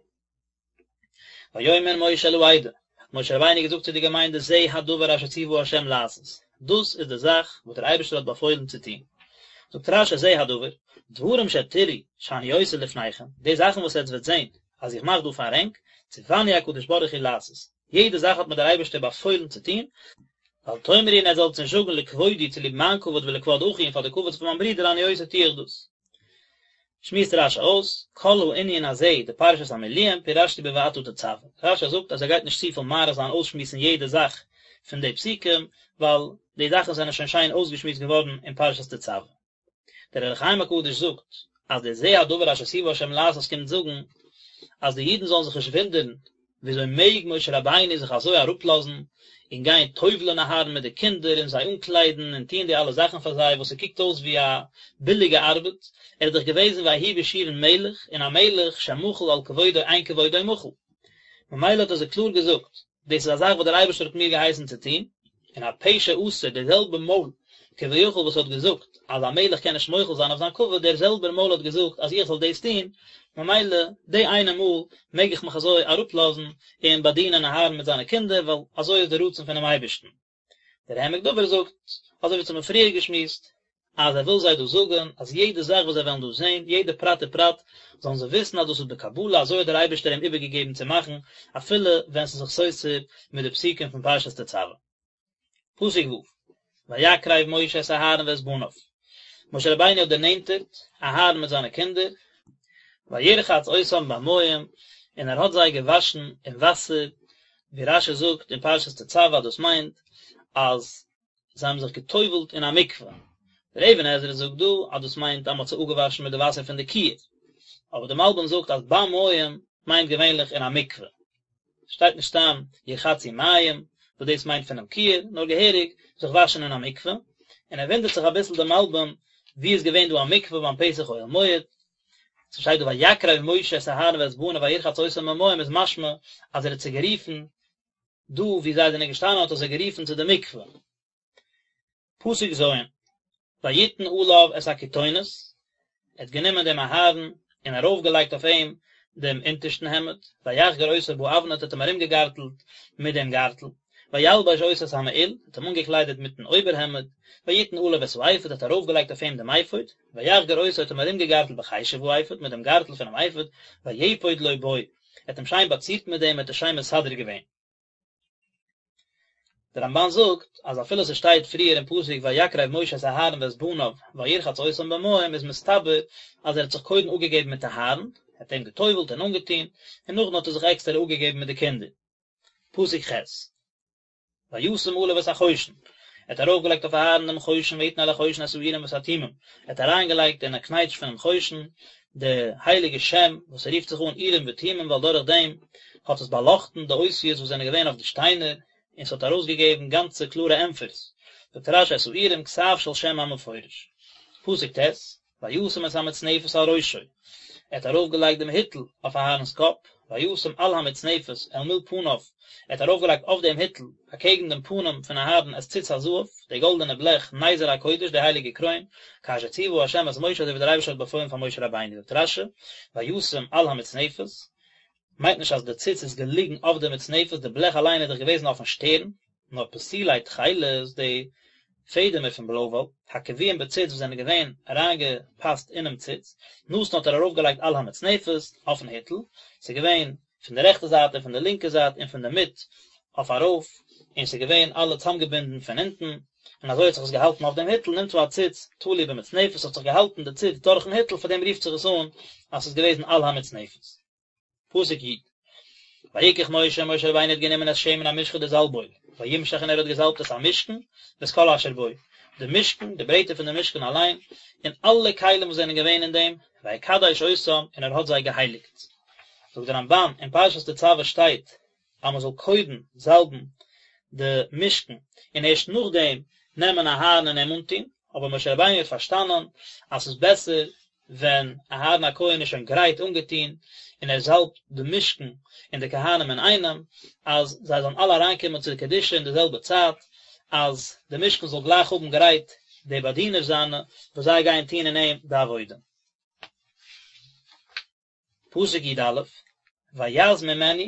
A: ויאמר משה אל העדה, האט משה רבינו געזאגט צו די געמיינדע זה הדבר אשר ציוה ה' לעשות, דאס איז די זאך וואס דער אייבערשטער האט באפוילן צו טון. זאגט רש"י זה הדבר, דברים שתראו שאני עושה לפניכם, די זאכן וואס עטס וועט זען אז איך מאך דא פאר ענק, ציווני הקדוש ברוך הוא לעשות, יעדע זאך האט מיר דער אייבערשטער באפוילן צו טון, ואל תאמרו און עטס זאלטס נישט זאגן לכבודי צוליב מיין כבוד ולכבוד אחי און פאר די כבוד פון מיין ברודער אני עושה טו איך דאס. שמועסט רש"י אויס, כל הענין הזה דפרשת המילואים פירשתי בואתה תצוה. רש"י זאגט אז ער גייט נישט צופיל מאריך זיין אויסשמועסן יעדע זאך פון די פסוקים, ווייל די זאכן זענען שוין שיין אויסגעשמועסט געווארן אין פרשת תצוה. דער אור החיים הקדוש זאגט אז דער זה הדבר אשר ציוה השם לעשות קומט זאגן אז די אידן זאלן זיך נישט וואונדערן וויאזוי מעג משה רבינו זיך אזוי אראפלאזן און גיין טובל'ען אהרן מיט די קינדער און זיי אנקליידן און טוען די אלע זאכן פאר זיי וואס ס'קוקט אויס ווי א ביליגע ארבעט, ער איז דאך געוועזן ויהי בישורון מלך און א מלך שמחל על כבודו אין כבודו מחול. ממילא האט ער זיי קלאר געזאגט דאס איז א זאך וואס דער אייבערשטער האט מיר געהייסן צו טון, און הפה שאסר, דער זעלבער מויל כביכול וואס האט געזאגט אז א מלך קען נישט מוחל זיין אויף זיין כבוד, דער זעלבער מויל האט געזאגט אז איך זאל דאס טון, ממילא די איינע מאל מעג איך מיך אזוי אראפלאזן און באדינען אהרן מיט זיינע קינדער, ווייל אזוי איז דער רצון פונעם אייבערשטן. דער העמק דבר זאגט, אזוי ווי אונז האבן פריער געשמועסט, אז ער וויל זיי דא זאגן אז יעדע זאך וואס זיי וועלן דא זען, יעדע פרט ופרט, זאלן זיי וויסן אז דאס איז בקבלה, אזוי האט דער אייבערשטער אים איבערגעגעבן צו מאכן, אפילו ווען ס'איז זיך סותר מיט די פסוקים פון פרשת תצוה. פסוק ו'. ויקרב משה את אהרן ואת בניו, משה רבינו האט דערנענטערט אהרן מיט זיינע קינדער, וירחץ אותם במים, און ער האט זיי געוואשן אין וואסער, ווי רשי זאגט אין פרשת תצוה דאס מיינט אז זיי האבן זיך גע'טובל'ט אין א מקווה, דער אבן עזרא זאגט דא אז דאס מיינט אז מען האט זיי אפגעוואשן מיט די וואסער פון די כיור, אבער דער מלבים זאגט אז במים מיינט געווענליך אין א מקווה. שטייט נישט סתם ירחצו מים וואס דאס מיינט פונעם כיור, נאר געהעריג זיך וואשן אין א מקווה, און ער וואונדערט זיך אביסל די מלבים ווי איז געווען דא א מקווה ביים פתח אוהל מועד, ס'שטייט דא ויקרב משה את אהרן ואת בניו וירחץ אותם במים איז משמע אז ער האט זיי גערופן דא ווי זיי זענען געשטאנען האט ער זיי גערופן צו די מקווה. פסוק ז', ויתן עליו את הכתונת, ער האט גענומען דעם אהרן און ארויפגעלייגט אויף אים דעם אונטערשטן העמד, ויחגר אותו באבנט האט אים ארומגעגארטלט מיט דעם גארטל, וילבש אותו את המעיל, האט אים אנגעקליידעט מיטן אויבערהעמד, ויתן עליו את האפוד, האט ארויפגעלייגט אויף אים דעם אפוד, ויחגר אותו האט אים ארומגעגארטלט בחשב האפוד, מיט דעם גארטל פונעם אפוד, ויפוד לו בו, ער האט אים שיין באצירט מיט דעם, ער האט עס שיין מסדר געווען. דער רמבן זאגט אז אפילו ס'שטייט פריער אין פסוק ויקרב משה את אהרן ואת בניו וירחץ אותם במים איז מסתבר אז ער האט זיך קודם אפגעגעבן מיט אהרן, ער האט אים גע'טובל'ט און אנגעטון, און נאכדעם האט ער זיך עקסטער אפגעגעבן מיט די קינדער. פסוק ח'. וישם עליו את החושן, ער האט ארויפגעלייגט אויף אהרן דעם חושן ויתן אל החושן את האורים ואת התומים, ער האט אריינגעלייגט אין א קנייטש פונעם חושן די הייליגע שם וואס ס'רופט זיך אן אורים ותומים ווייל דורך דעם האט עס באלאכטן די אותיות וואס זענען געווען אויף די שטיינער און ס'האט ארויסגעגעבן גאנצע קלארע ענטפערס, זאגט רשי את האורים כתב של שם המפורש. פסוק ט', וישם את המצנפת על ראשו, ער האט ארויפגעלייגט דעם היטל אויף אהרן'ס קאפ, וישם על המצנפת אל מול פניו, ער האט ארויפגעלייגט אויף דעם היטל אקעגן דעם פנים פון אהרן את ציץ הזהב, די גאלדענע בלעך, נזר הקודש, די הייליגע קרוין, כאשר ציוה ה' את משה אזוי ווי דער אייבערשטער האט באפוילן פאר משה רבינו, זאגט רשי, וישם על המצנפת, מיינט נישט אז די ציץ איז געליגן אויף די מצנפת, די בלעך אליין איז דאך געוועזן אויפן שטערן, נאר פתילי תכלת, די פעדעמער פון בלוי וואל, הקבועים בציץ וואס זענען געווען אריינגעפאסט אינעם ציץ, נתן האט ער ארויפגעלייגט על המצנפת, אויפן היטל, ס'איז געווען פון די רעכטע זייט און פון די לינקע זייט און פון די מיט אויף ארויף, און ס'איז געווען אלע צאמגעבינדן פון אונטן, און אזוי האט זיך עס געהאלטן אויף דעם היטל, נמצא הציץ תלוי במצנפת, האט זיך געהאלטן די ציץ דורכן היטל, פאר דעם רופט זיך עס אן אז ס'איז געוועזן על המצנפת. פסוק י'. ויקח משה, משה רבינו האט גענומען את שמן המשחה די זאלבאויל, וימשח און ער האט געזאלבט את המשכן, ואת כל אשר בו, די משכן, די ברעטער פון די משכן אליין, און אלע כלים וואס זענען געווען אין דעם, ויקדש אותם, און ער האט זיי געהייליגט. זאגט דער רמבן, אין פרשת תצוה שטייט אז מען זאל קודם זאלבן די משכן און ערשט נאכדעם נעמען אהרן און אים אנטון, אבער משה רבינו האט פארשטאנען אז ס'איז בעסער ווען אהרן הכהן איז שוין גרייט אנגעטון און ער זאלבט די משכן און די כהנים אינאיינעם, אז זיי זאלן אלע אריינקומען צו די קדושה אין די זעלבע צייט, אז די משכן זאל גלייך האבן גרייט די באדינער זיינע וואס זיי גייען טון אין אים די עבודה. פסוק י א, ויז ממנו,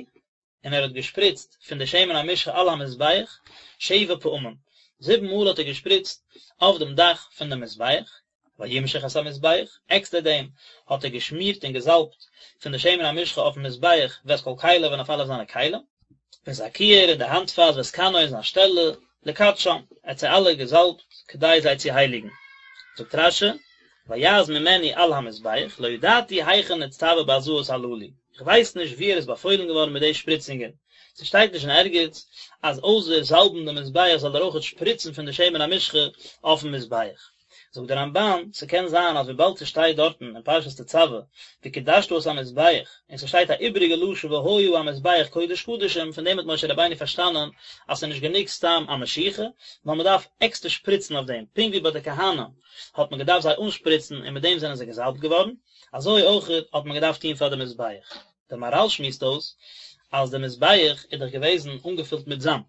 A: און ער האט געשפריצט פון די שמן המשחה על המזבח שבע פעמים, זיבן מאל האט ער געשפריצט אויף דעם דאך פון דעם מזבח, וימשח את המזבח, עקסטער דעם האט ער געשמירט און געזאלבט פון די שמן המשחה אויפן מזבח ואת כל כליו און אויף אלע זיינע כלים, ואת הכיור און די האנטפאס ואת כנו און זיין שטעלע, לקדשם, ער האט זיי אלע געזאלבט כדי זיי צו הייליגן. זאגט רשי, ויז ממנו על המזבח, לא ידעתי היכן נצטווה בהזאות הללו, איך ווייס נישט וואו ער איז באפוילן געווארן מיט די שפריצונגען, ס'שטייט נישט אין ערגעץ אז אויסער זאלבן די מזבח זאל ער אויכעט שפריצן פון די שמן המשחה אויפן מזבח. זאגט דער רמבן, ס'קען זיין אז וויבאלד ס'שטייט דארטן אין פרשת תצוה וקדשת את המזבח, און ס'שטייט א איבעריגע לשון והיה המזבח קודש קדשים, פון דעם האט משה רבינו פארשטאנען אז ס'איז נישט גענוג סתם א משיחה, נאר מ'דארף עקסטער שפריצן אויף דעם, פונקט ווי ביי די כהנים האט מען געדארפט זיי אנשפריצן און מיט דעם זענען זיי געזאלבט געווארן, אזוי אויך האט מען געדארפט טון פאר די מזבח. דער מהרל שמועסט אויס אז די מזבח איז דאך געוועזן אנגעפילט מיט זאמד,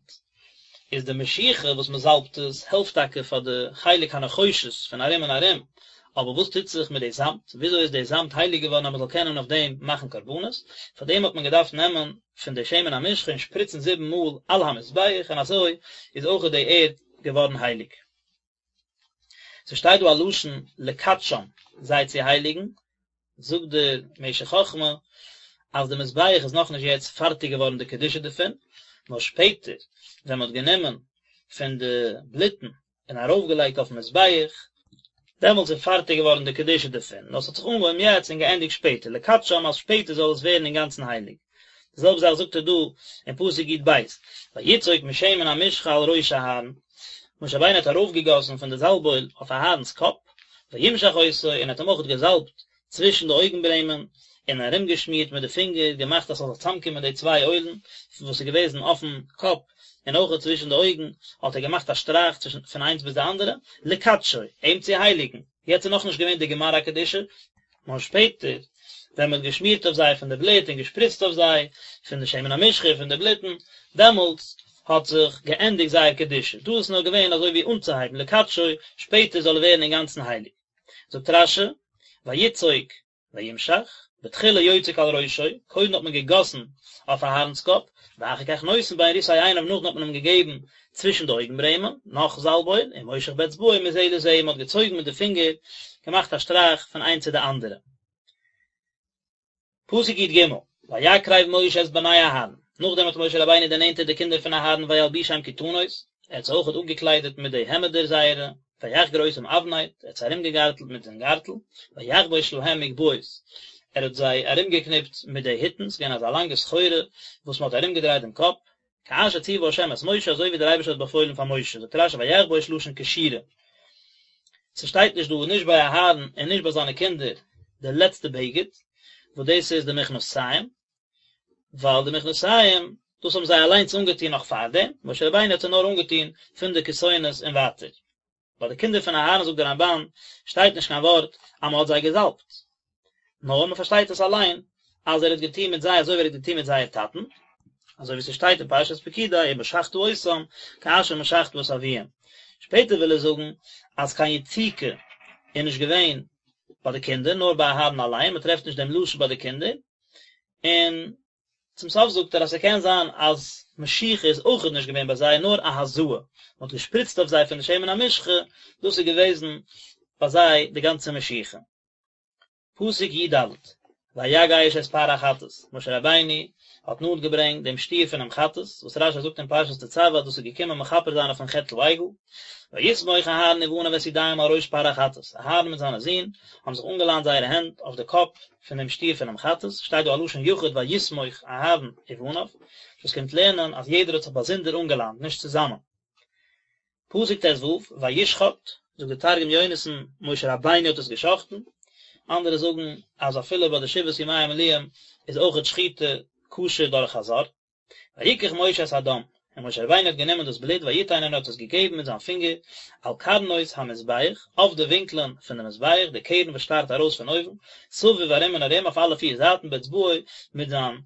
A: איז די משיחה וואס מען זאלבט עס העלפט טאקע פאר די חלק הנחושת פון ארום און ארום, אבער וואס טוט זיך מיט די זאמד, וויאזוי איז די זאמד הייליג געווארן אז מען זאל קענען אויף דעם מאכן קרבנות, פאר דעם האט מען געדארפט נעמען פון די שמן המשחה און שפריצן זיבן מאל על המזבח און אזוי איז אויך די ערד געווארן הייליג. ס'שטייט דא א לשון לקדשם, זיי צו הייליגן, זאגט דער משך חכמה אז די מזבח איז נאכנישט יעצט פארטיג געווארן די קדושה דערפון, נאר שפעטער ווען מ'האט גענומען פון די בלוטן און ארויפגעלייגט אויפן מזבח, דעמאלטס איז פארטיג געווארן די קדושה דערפון, נאר עס האט זיך אנגעהויבן יעצט און געענדיגט שפעטער, לקדשם אז שפעטער זאל עס ווערן אינגאנצן הייליג. די זעלבע זאך זאגט ער דא אין פסוק י"ב, ויצוק משמן המשחה על ראש אהרן, משה רבינו האט ארויפגעגאסן פון די זאלב-אויל אויף אהרן'ס קאפ, וימשח אותו, און האט אים אויך געזאלבט צווישן די אויגן-ברעמען, און ארומגעשמירט מיט די פינגער, געמאכט אז ס'זאל זיך צוזאמקומען די צוויי אוילן וואס איז געוועזן אויפן קאפ און אויך צווישן די אויגן האט ער געמאכט א שטרייך צווישן פון איינס ביז די אנדערע, לקדשו, אים צו הייליגן, יעצט איז נאכנישט געווען די גמר הקדושה, נאר שפעטער ווען מען האט געשמירט אויף זיי פון די בלוט און געשפריצט אויף זיי פון די שמן המשחה פון די בלוטן, דעמאלטס האט זיך געענדיגט זייער קדושה, דא איז נאר געווען אזוי ווי אנצוהייבן לקדשו, שפעטער זאל ער ווערן אינגאנצן הייליג. זאגט רש"י, ויצוק וימשח, בתחילה יוצק על ראשו, קודם האט מען געגאסן אויף אהרן'ס קאפ, ואחר כך נותן בין ריסי עיניו נאכדעם האט מען אים געגעבן צווישן די אויגן ברעמען, נאך זאלב-אויל, ומושך באצבעו מזה לזה, מען האט געצויגן מיט די פינגער, געמאכט א שטרייך פון איינס צו די אנדערע. פסוק י"ג, ויקרב משה את בני אהרן, נאכדעם האט משה רבינו דערנענטערט די קינדער פון אהרן וילבישם כתנות, ער האט זיי אויכעט אפגעקליידעט מיט די העמעדער זייערע, ויחגר אותם אבנט, ער האט זיי ארומגעגארטלט מיט דעם גארטל, ויחבוש להם מגבעות, ער האט זיי ארומגעקניפט מיט די היטן, ס'איז געווען אזא לאנגע סחורה וואס מען האט ארומגעדרייט דעם קאפ, כאשר ציווה ה' את משה, אזוי ווי דער אייבערשטער האט באפוילן פאר משה, זאגט רש"י ויחבוש לשון קשירה. ס'שטייט נישט דא נישט ביי אהרן און נישט ביי זיינע קינדער די לעצטע בגד, וואס דאס איז די מכנסיים, ווייל די מכנסיים דאס האבן זיי אליינס אנגעטון נאך פארדעם, משה רבינו האט זיי נאר אנגעטון פון די כתונת און ווייטער. ביי די קינדער פון אהרן זאגט דער רמב"ן שטייט נישט קיין ווארט אז מען האט זיי געזאלבט, נאר מען פארשטייט עס אליין אז ער האט געטון מיט זיי אזוי ווי ער האט געטון מיט זייער טאטן, אזוי ווי ס'שטייט אין פרשת פקודי ומשחת אותם כאשר משחת את אביהם. שפעטער וויל ער זאגן אז קיין יציקה איז נישט געווען ביי די קינדער נאר ביי אהרן אליין, מען טרעפט נישט דעם לשון ביי די קינדער, און צום סוף זאגט ער אז ס'קען זיין אז משיחה איז אויכעט נישט געווען ביי זיי נאר א הזאה, מ'האט געשפריצט אויף זיי פון די שמן המשחה, דאס איז געוועזן ביי זיי די גאנצע משיחה. פסוק י"ד, ויגש את פר החטאת, משה רבינו האט נאנט געברענגט דעם שטיר פונעם חטאת, וואס רש"י זאגט אין פרשת תצוה אז דאס איז געקומען מכפר זיין אויפן חטא העגל, ויסמוך אהרן ובניו את ידיהם על ראש פר החטאת, אהרן מיט זיינע זין האבן זיך אנגעליינט זייערע הענט אויף די קאפ פון דעם שטיר פונעם חטאת, שטייט דא א לשון יחיד ויסמוך אהרן ובניו, דאס קומט לערנען אז יעדער האט זיך באזונדער אנגעליינט, נישט צוזאמען. פסוק ט"ו, וישחט, זאגט דער תרגום יונתן, משה רבינו האט עס געשחט'ן, אנדערע זאגן אז אפילו ביי די שבעת ימי המילואים איז אויכעט שחיטה כשר דורך א זר. ויקח משה את הדם, און משה רבינו האט גענומען דאס בלוט ויתן און ער האט עס געגעבן מיט זיין פינגער על קרנות המזבח, אויף די ווינקלען פון די מזבח, די קרן וואס שטארט ארויס פון אויבן, סביב ארום און ארום אויף אלע פיר זייטן באצבעו מיט זיין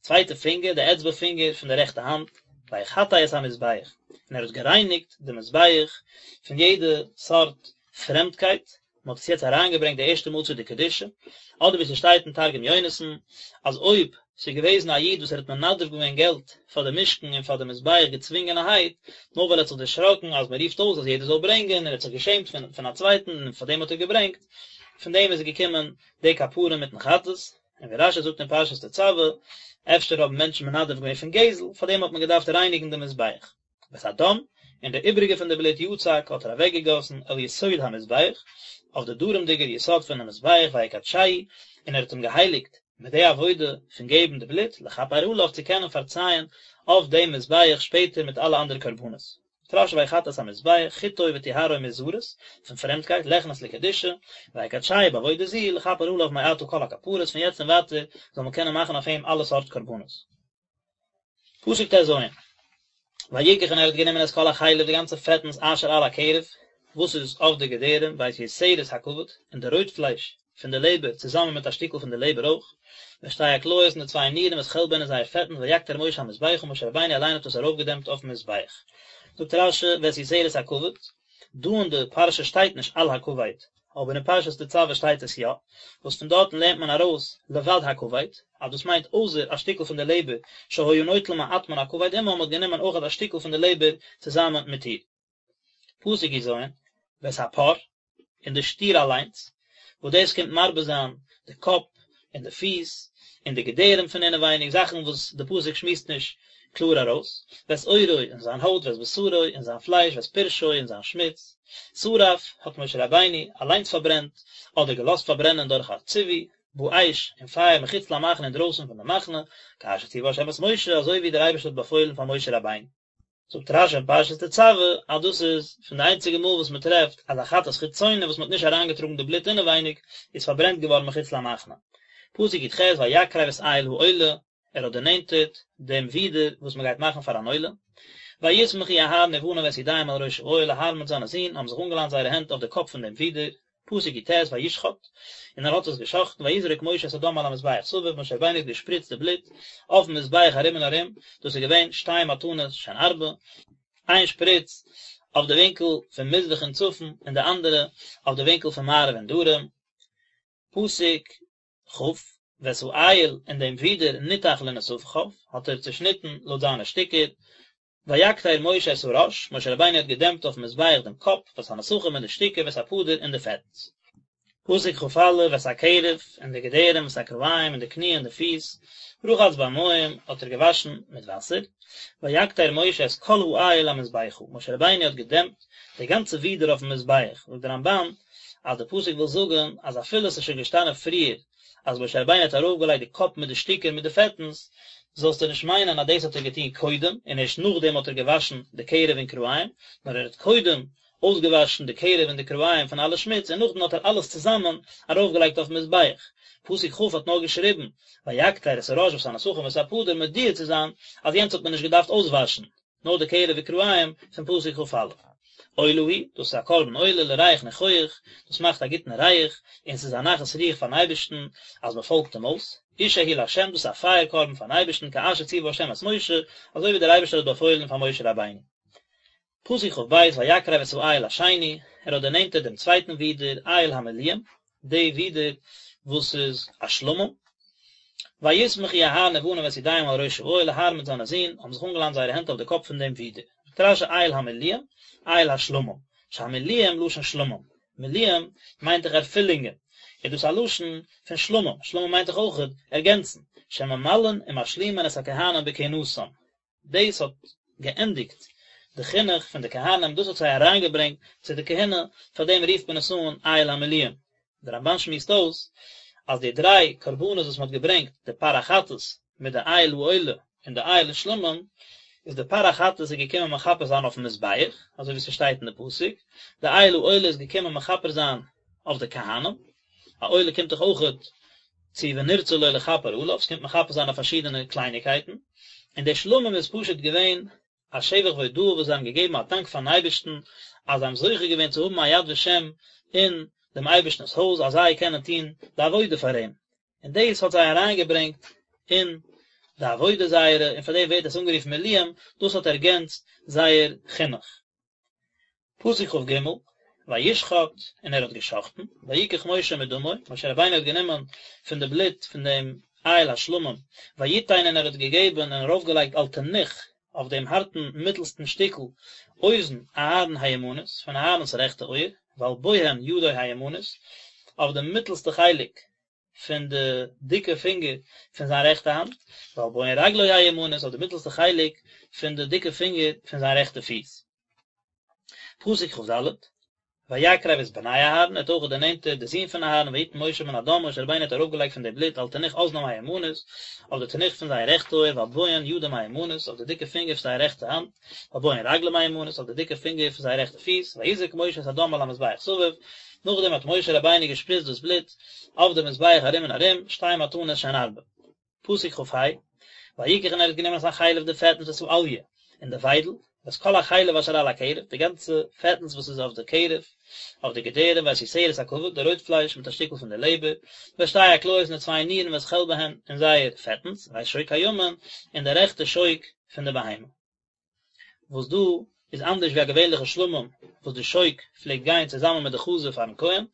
A: צווייטע פינגער, די אצבע פינגער פון די רעכטע האנט, ויחטא את המזבח, און ער האט גערייניגט די מזבח פון יעדע סארט פרעמדקייט, מען האט עס יעצט אריינגעברענגט די ערשטע מאל צו די קדושה, אדער ווי ס'שטייט אין תרגום יונתן, אז אויב ס'איז געוועזן א איד וואס ער האט מנדב געווען געלט פאר די משכן און פאר די מזבח געצווינגענערהייט, נאר ווייל ער האט זיך דערשראקן אז מען רופט אויס אז יעדער זאל ברענגען און ער האט זיך געשעמט פון פון א צווייטן און פאר דעם האט ער געברענגט, פון דעם איז געקומען די כפרה מיטן חטאת, און ווי רש"י זאגט אין פרשת תצוה, אפשר האבן מענטשן מנדב געווען פון גזל, פאר דעם האט מען געדארפט רייניגן די מזבח. ואת הדם, און די איבריגע פון די בלוט יצק האט ער אוועקגעגאסן אל יסוד המזבח, אויף די דרומדיגער יסוד פונעם מזבח ויקדשהו, און ער האט אים געהייליגט מיט די עבודה פון געבן די בלוט, לכפר עליו צו קענען פארצייען אויף דעם מזבח שפעטער מיט אלע אנדערע קרבנות. זאגט רש"י ויחטא את המזבח, חטאו וטהרו מזרות, פון פרעמדקייט, ליכנס לקדושה, ויקדשהו בעבודה זו, לכפר עליו מעתה כל הכפרות, פון יעצט און ווייטער זאל מען קענען מאכן אויף אים אלע סארט קרבנות. פסוק ט"ז, ויקח און ער האט גענומען את כל החלב די גאנצע פעטנס אשר על הקרב, וואס איז אויף די געדערים, ואת יותרת הכבד, און די רויט פלייש פון די לעבער צוזאמען מיט א שטיקל פון די לעבער אויך, ואת שתי הכליות און די צוויי נירן ואת חלבהן און זייער פעטנס ויקטר משה המזבחה משה רבינו אליין האט עס ארויפגעדעמפט אויפן מזבח. זאגט רש"י ואת יותרת הכבד, דא אין די פרשה שטייט נישט על הכבד, אבער אין פרשת תצוה שטייט עס יא, וואס פון דארטן לערנט מען ארויס לבד הכבד, אז דאס מיינט אויסער א שטיקל פון די לעבער שהיה נוטל מעט מן הכבד עמה מ'האט גענומען אויך א שטיקל פון די לעבער צוזאמען מיט איר. פסוק י"ז, ואת הפר, און די שטיר אליינס, וואס דאס קומט מרבה זיין די קאפ און די פיס און די געדערים פון אינעווייניג, זאכן וואס די פסוק שמועסט נישט. קלאר ארויס, ואת עורו און זיין הויט ואת בשרו און זיין פלייש ואת פרשו און זיין שמוץ, שרף האט משה רבינו אליינס פארברענט, אדער געלאזט פארברענען דורך א ציווי, באש, אין פייער מחוץ למחנה אינדרויסן פון די מחנה, כאשר ציווה השם את משה, אזוי ווי דער אייבערשטער האט באפוילן פאר משה רבינו. זאגט רשי אין פרשת תצוה אז דאס איז פון די איינציגע מאל וואס מען טרעפט אז א חטאת חיצונה וואס מען האט נישט אריינגעטראגן די בלוט אינעווייניג איז פארברענט געווארן מחוץ למחנה. פסוק י"ח ויקרב את איל העולה, ער האט דערנענטערט דעם ווידער וואס מען גייט מאכן פאר אן עולה. ויסמכו אהרן ובניו את ידיהם על ראש האיל, אהרן מיט זיינע זין האבן זיך אנגעליינט זייערע הענט אויף די קאפ פון דעם ווידער, פסוק י"ט וישחט, און ער האט עס געשחטן, ויזרק משה את הדם על המזבח סביב, משה רבינו האט געשפריצט די בלוט אויפן מזבח ארום און ארום, דאס איז געווען שתי מתנות שהן ארבע, איין שפריץ אויף די ווינקל פון מזרח און צפון, און די אנדערע אויף די ווינקל פון מערב און דרום, פסוק כ, ואת האיל און דעם ווידער נתח לנתחיו, האט ער צעשניטן לויט זיינע שטיקער, ויקטר משה את הראש, משה רבינו האט געדעמפט אויפן מזבח דעם קאפ, ואת הנתחים און די שטיקער, ואת הפדר און די פעטנס. פסוק כא, ואת הקרב, און די געדערים, ואת הכרעים, און די קני און די פיס, רחץ במים, האט ער געוואשן מיט וואסער, ויקטר משה את כל האיל המזבחה, משה רבינו האט געדעמפט די גאנצע ווידער אויפן מזבח, זאגט דער רמבן, אז די פסוק וויל זאגן אז אפילו עס איז שוין געשטאנען פריער אז משה רבינו האט ארויפגעלייגט די קאפ מיט די שטיקער מיט די פעטנס, זאלסטו נישט מיינען אז דאס האט ער געטון קודם און ערשט נאכדעם האט ער געוואשן די קרב און כרעים, נאר ער האט קודם אויסגעוואשן די קרב און די כרעים פון אלע שמוץ און נאכדעם האט ער אלעס צוזאמען ארויפגעלייגט אויפן מזבח. פסוק כ' האט נאר געשריבן ויקטר את הראש ואת הנתחים ואת הפדר מודיע צו זיין אז יענץ האט מען נישט געדארפט אויסוואשן, נאר די קרב וכרעים פון פסוק כא. עולה היא, דאס איז א קרבן עולה לריח ניחוח, דאס מאכט א גוטן ריח, און ס'איז א נחת רוח פארן אייבערשטן אז מען פאלגט אים אויס, אשה היא לה', דאס איז א פייער קרבן פארן אייבערשטן כאשר ציווה ה' את משה, אזוי ווי דער אייבערשטער האט באפוילן פאר משה רבינו. פסוק כב, ויקרב את האיל השני, ער האט דערנענטערט דעם צווייטן ווידער, איל המלואים, די ווידער וואס איז א שלמים, ויסמכו אהרן ובניו את ידיהם על ראש האיל, אהרן מיט זיינע זין האבן זיך אנגעלאנט זייערע הענט אויף די קאפ פון דעם ווידער. זאגט רשי איל המלואים, איל השלמים, שהמלואים לשון שלמים, מלואים מיינט דאך ערפילונגען, איז דאס א לשון פון שלמים, שלמים מיינט דאך אויכעט ערגענצן, שממלאין ומשלימין את הכהנים בכהונתם, דאס האט געענדיגט די חינוך פון די כהנים, דאס האט זיי אריינגעברענגט צו די כהונה, פאר דעם רופט מען עס אן איל המלואים. דער רמבן שמועסט אויס אז די דריי קרבנות וואס מען האט געברענגט, די פר החטאת מיט די איל העולה און די איל השלמים, איז די פר החטאת איז געקומען מכפר זיין אויפן מזבח, אזוי ווי ס'שטייט אין די פסוק, די איל העולה איז געקומען מכפר זיין אויף די כהנים, א עולה קומט דאך אויכעט צו ונרצה לו לכפר עליו, ס'קומט מכפר זיין אויף פארשידענע קלייניקייטן, און די שלמים איז פשוט געווען א שבח והודאה וואס זיי האבן געגעבן א דאנק פארן אייבערשטן אז זיי האבן זוכה געווען צו האבן א יד ושם אין דעם אייבערשטנ'ס הויז אז זיי קענען טון די עבודה פאר אים, און דאס האט זיי אריינגעברענגט אין די עבודה זייערע, און פאר דעם ווערט עס אנגערופן מלואים, דאס האט ערגענצט זייער חינוך. פסוק כג, וישחט, און ער האט געשחטן, ויקח משה מדמו, משה רבינו האט גענומען פון די בלוט פון דעם איל השלמים, ויתן און ער האט געגעבן און ארויפגעלייגט על תנוך, אויף דעם הארטן מיטלסטן שטיקל, אוזן אהרן הימנית, פון אהרן'ס רעכטע אויער, ועל בוהן ידו הימנית, אויף די מיטלסטע חלק פון די דיקע פינגער פון זיין רעכטע האנט, ועל בוהן רגלו הימנית, אויף די מיטלסטע חלק פון די דיקע פינגער פון זיין רעכטע פיס. פסוק כד, ויקרב את בני אהרן, ער האט אויך דערנענטערט די זין פון אהרן, ויתן משה מן הדם, משה רבינו האט ארויפגעלייגט פון די בלוט על תנוך אזנם הימנית, אויף די תנוך פון זייער רעכטע אויער, ועל בוהן ידם הימנית, אויף די דיקע פינגער פון זייער רעכטע האנט, ועל בוהן רגלם הימנית, אויף די דיקע פינגער פון זייער רעכטע פיס, ויזרק משה את הדם על המזבח סביב, נאכדעם האט משה רבינו געשפריצט דאס בלוט אויף די מזבח ארום און ארום, שתי מתנות שהן ארבע. פסוק כה, ויקח און ער האט גענומען את החלב די פעטנס ואת האליה און די וויידל, ואת כל החלב אשר על הקרב, די גאנצע פעטנס וואס איז אויף די קרב, אויף די געדערים, ואת יותרת הכבד, די רויט פלייש מיט א שטיקל פון די לעבער, ואת שתי הכליות און די צוויי נירן ואת חלבהן און זייער פעטנס, ואת שוק הימין, און די רעכטע שוק פון די בהמה. וואס דא איז אנדערש ווי א געווענליכע שלמים וואס די שוק פלעגט גיין צוזאמען מיט די חזה פארן כהן,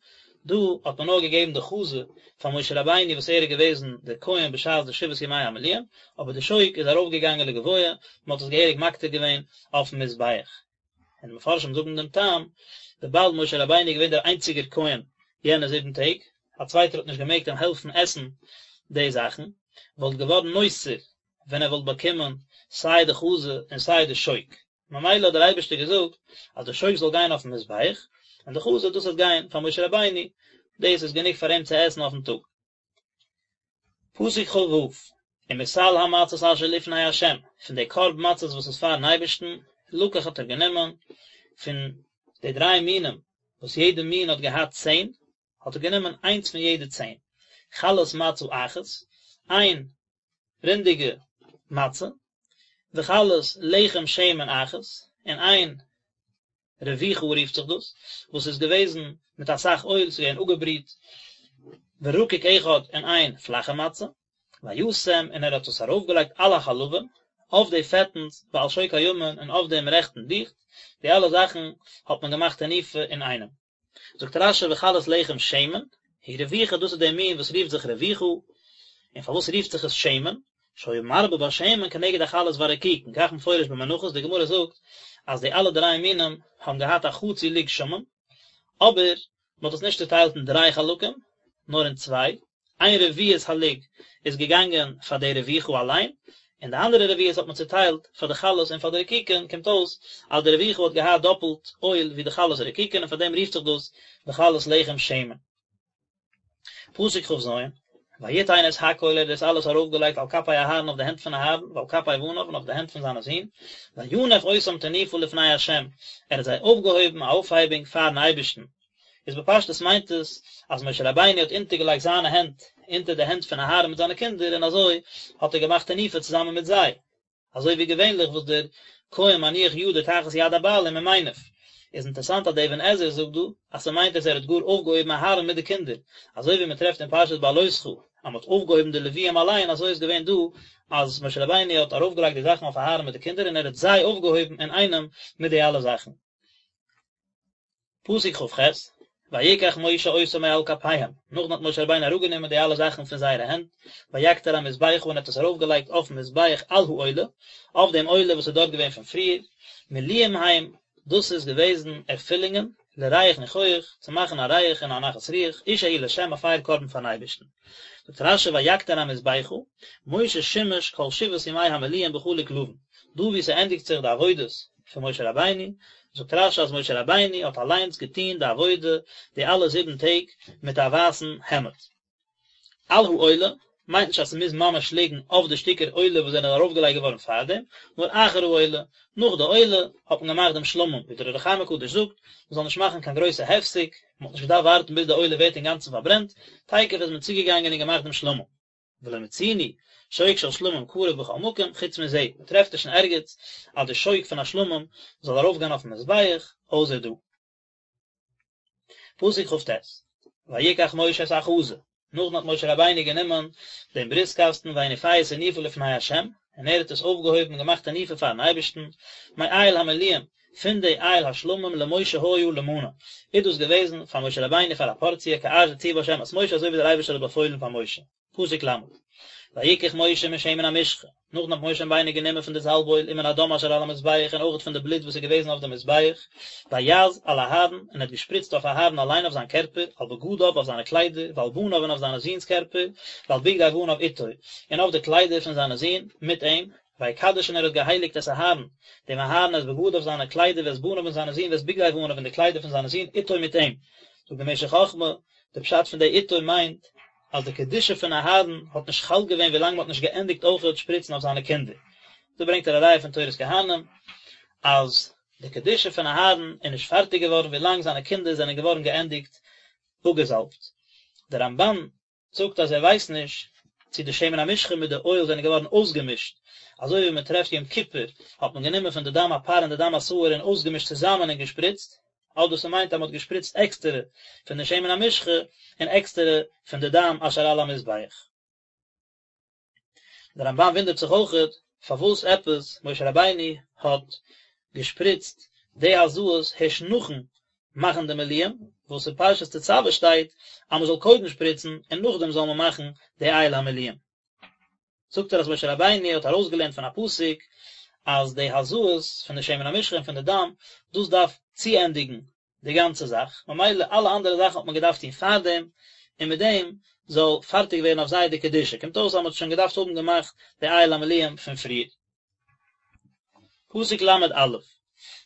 A: דא האט מען נאר געגעבן די חזה פאר משה רבינו וואס ער איז געוועזן דער כהן בשעת די שבעת ימי המילואים, אבער די שוק איז ארויף געגאנגען לגבוה, מען האט עס געהעריג מקטיר געווען אויפן מזבח. און די מפרשים זאגן דעם טעם, וויבאלד משה רבינו איז געווען דער איינציגער כהן יענע זיבן טעג, א צווייטער האט נישט געמעגט אים העלפן עסן די זאכן, וואלט געווארן נותר ווען ער וואלט באקומען סיי די חזה און סיי די שוק, ממילא האט דער אייבערשטער געזאגט אז די שוק זאל גיין אויפן מזבח, און די חזה דאס וועט גיין פאר משה רבינו, דאס איז גענוג פאר אים צו עסן אויפן טאג. פסוק כ"ו, ומסל המצות אשר לפני ה', פון די קארב מצות וואס איז פארן אייבערשטן, לקח האט ער גענומען, פון די דריי מינים וואס יעדע מין האט געהאט צען, האט ער גענומען איינס פון יעדע צען, חלת מצה אחת, איין רינדיגע מצה, וחלת לחם שמן אחת, און איין רבוכה רופט זיך דאס, וואס איז געוועזן מיט אסאך אויל, ס'איז געווען אפגעבריט, ורקיק אחד און איין פלאכע מצה, וישם און ער האט עס ארויפגעלייגט על החלבים, אויף די פעטנס, ועל שוק הימין און אויף דעם רעכטן דיכט, די אלע זאכן האט מען געמאכט תנופה אינאיינעם. זאגט רש"י וחלת לחם שמן, היא רבוכה דאס איז דער מין וואס רופט זיך רבוכה, און פארוואס רופט זיך עס שמן? שהיה מרבה בה שמן כנגד החלות והרקיקין, כך מפורש במנחות, די גמרא זאגט אז די אלע דריי מינים האבן געהאט א חצי לוג שמן, אבער מען האט עס נישט צוטיילט אין דריי חלקים, נאר אין צוויי, איין רביעית הלוג איז געגאנגען פאר די רבוכה אליין, און די אנדערע רביעית האט מען צוטיילט פאר די חלות און פאר די רקיקין, קומט אויס אז די רבוכה האט געהאט דאפלט אויל ווי די חלות און רקיקין און פאר דעם רופט זיך דאס וחלת לחם שמן. פסוק כ"ז, ויתן את הכל ער האט דאס אלעס ארויפגעלייגט על כפי אהרן אויף די הענט פון אהרן ועל כפי בניו און אויף די הענט פון זיינע זין, וינף אותם תנופה לפני ה', ער האט זיי אויפגעהויבן א אויפהייבונג פארן אייבערשטן, איז בפשטות מיינט עס אז משה רבינו האט אונטערגעלייגט זיינע הענט אונטער די הענט פון אהרן מיט זיינע קינדער און אזוי האט ער געמאכט תנופה צוזאמען מיט זיי, אזוי ווי געווענליך וואס דער כהן מניח ידו תחת יד הבעלים ומניף. איז אינטערסאנט אז דער אבן עזרא זאגט דא אז ס'מיינט אז ער האט גאר אויפגעהויבן אהרן מיט די קינדער, אזוי ווי מ'טרעפט אין פרשת בהעלותך אז מ'האט אויפגעהויבן די לוויים אליין אזוי איז געווען דא אז משה רבינו האט ארויפגעלייגט די זאכן אויף אהרן מיט די קינדער און ער האט זיי אויפגעהויבן אינאיינעם מיט די אלע זאכן. פסוק כ"ח, ויקח משה אותם מעל כפיהם, נאכדעם האט משה רבינו אראפגענומען די אלע זאכן פון זייערע הענט, ויקטר המזבחה און האט עס ארויפגעלייגט אויפן מזבח על העולה, אויף דעם עולה וואס איז דארט געווען פון פריער, מילואים הם, דאס איז געוועזן ערפילונגען, לריח ניחוח, צו מאכן א ריח און א נחת רוח, אשה היא לה' א פייער קרבן פארן אייבערשטן. זאגט רש"י ויקטר המזבחה, משה שימש כל שבעת ימי המילואים בחלוק לבן, דא וואו ס'ענדיגט זיך די עבודות פון משה רבינו, זאגט רש"י אז משה רבינו האט אליינס געטון די עבודה די אלע זיבן טעג מיט א ווייסן העמד. על העולה, מיינט נישט אז ס'מוז ממש ליגן אויף די שטיקער עולה וואס זענען ארויפגעלייגט געווארן פארדעם, נאר אחר העולה, נאך די עולה, האט מען געמאכט דעם שלמים, ווי דער אור החיים הקדוש זאגט, מ'זאל נישט מאכן קיין גרויסע הפסק, מ'האט נישט געדארפט ווארטן ביז די עולה ווערט אינגאנצן פארברענט, תיכף איז מען צוגעגאנגען און געמאכט דעם שלמים. ולא מצינו שוק של שלמים קרב בכל מקום, חוץ מזה, מ'טרעפט נישט אין ערגעץ אז די שוק פון א שלמים זאל ארויפגיין אויפן מזבח, אויסער דא. פסוק כ"ט, ויקח משה את החזה, נאכדעם האט משה רבינו גענומען דעם ברוסט קאסטן ויניפהו תנופה לפני ה', און ער האט עס אויפגעהויבן און געמאכט תנופה פארן אייבערשטן, מאיל המילואים, פון די איל השלמים למשה היה למנה, איז דאס געוועזן פאר משה רבינו פאר א פארציע כאשר ציווה ה' את משה אזוי ווי דער אייבערשטער האט באפוילן פאר משה. פסוק ל', ויקח משה משמן המשחה, נאכדעם האט משה רבינו גענומען פון די זאלב אויל ומן הדם אשר על המזבח און אויכעט פון די בלוט וואס איז געוועזן אויף די מזבח, ויז על אהרן, און ער האט געשפריצט אויף אהרן אליין אויף זיין קערפער, על בגדיו אויף זיינע קליידער, ועל בניו און אויף זיינע זון'ס קערפער, ועל בגדי בניו איתו, און אויף די קליידער פון זיינע זון מיט אים, ויקדש און ער האט געהייליגט את אהרן, דעם אהרן את בגדיו זיינע קליידער ואת בניו און זיינע זון ואת בגדי בניו און די קליידער פון זיינע זון איתו מיט אים. זאגט דער משך חכמה, די פשט פון די איתו מיינט, אז די קדושה פון אהרן האט נישט חל געווען ווילאנג מען האט נישט געענדיגט אויכעט שפריצן אויף זיינע קינדער. דא ברענגט ער א ראיה פון תורת כהנים אז די קדושה פון אהרן איז נישט פארטיג געווארן ווילאנג זיינע קינדער זענען געווארן געענדיגט אפגעזאלבט. דער רמב"ן זאגט אז ער ווייסט נישט צו די שמן המשחה מיט די אויל זענען געווארן אויסגעמישט, אזוי ווי מען טרעפט יום כיפור האט מען גענומען פון די דם הפר און די דם השעיר און אויסגעמישט צוזאמען און געשפריצט, אדער ס'מיינט אז מ'האט געשפריצט עקסטערע פון די שמן המשחה און עקסטערע פון די דם אשר על המזבח. דער רמב"ן וואונדערט זיך אויכעט פארוואס עפעס משה רבינו האט געשפריצט די הזאות הערשט נאכן מאכן די מילואים, וואס אין פרשת תצוה שטייט אז מ'זאל קודם שפריצן און נאכדעם זאל מען מאכן די איל המילואים. זאגט ער אז משה רבינו האט ארויסגעלערנט פון א פסוק אז די הזאות פון די שמן המשחה און פון די דם, דאס דארף צוענדיגן די גאנצע זאך, ממילא אלע אנדערע זאכן האט מען געדארפט טון פארדעם, און מיט דעם זאל פארטיג ווערן אויף זיי די קדושה, קומט אויס אז מען האט שוין געדארפט האבן געמאכט די איל המילואים פון פריער. פסוק ל' א',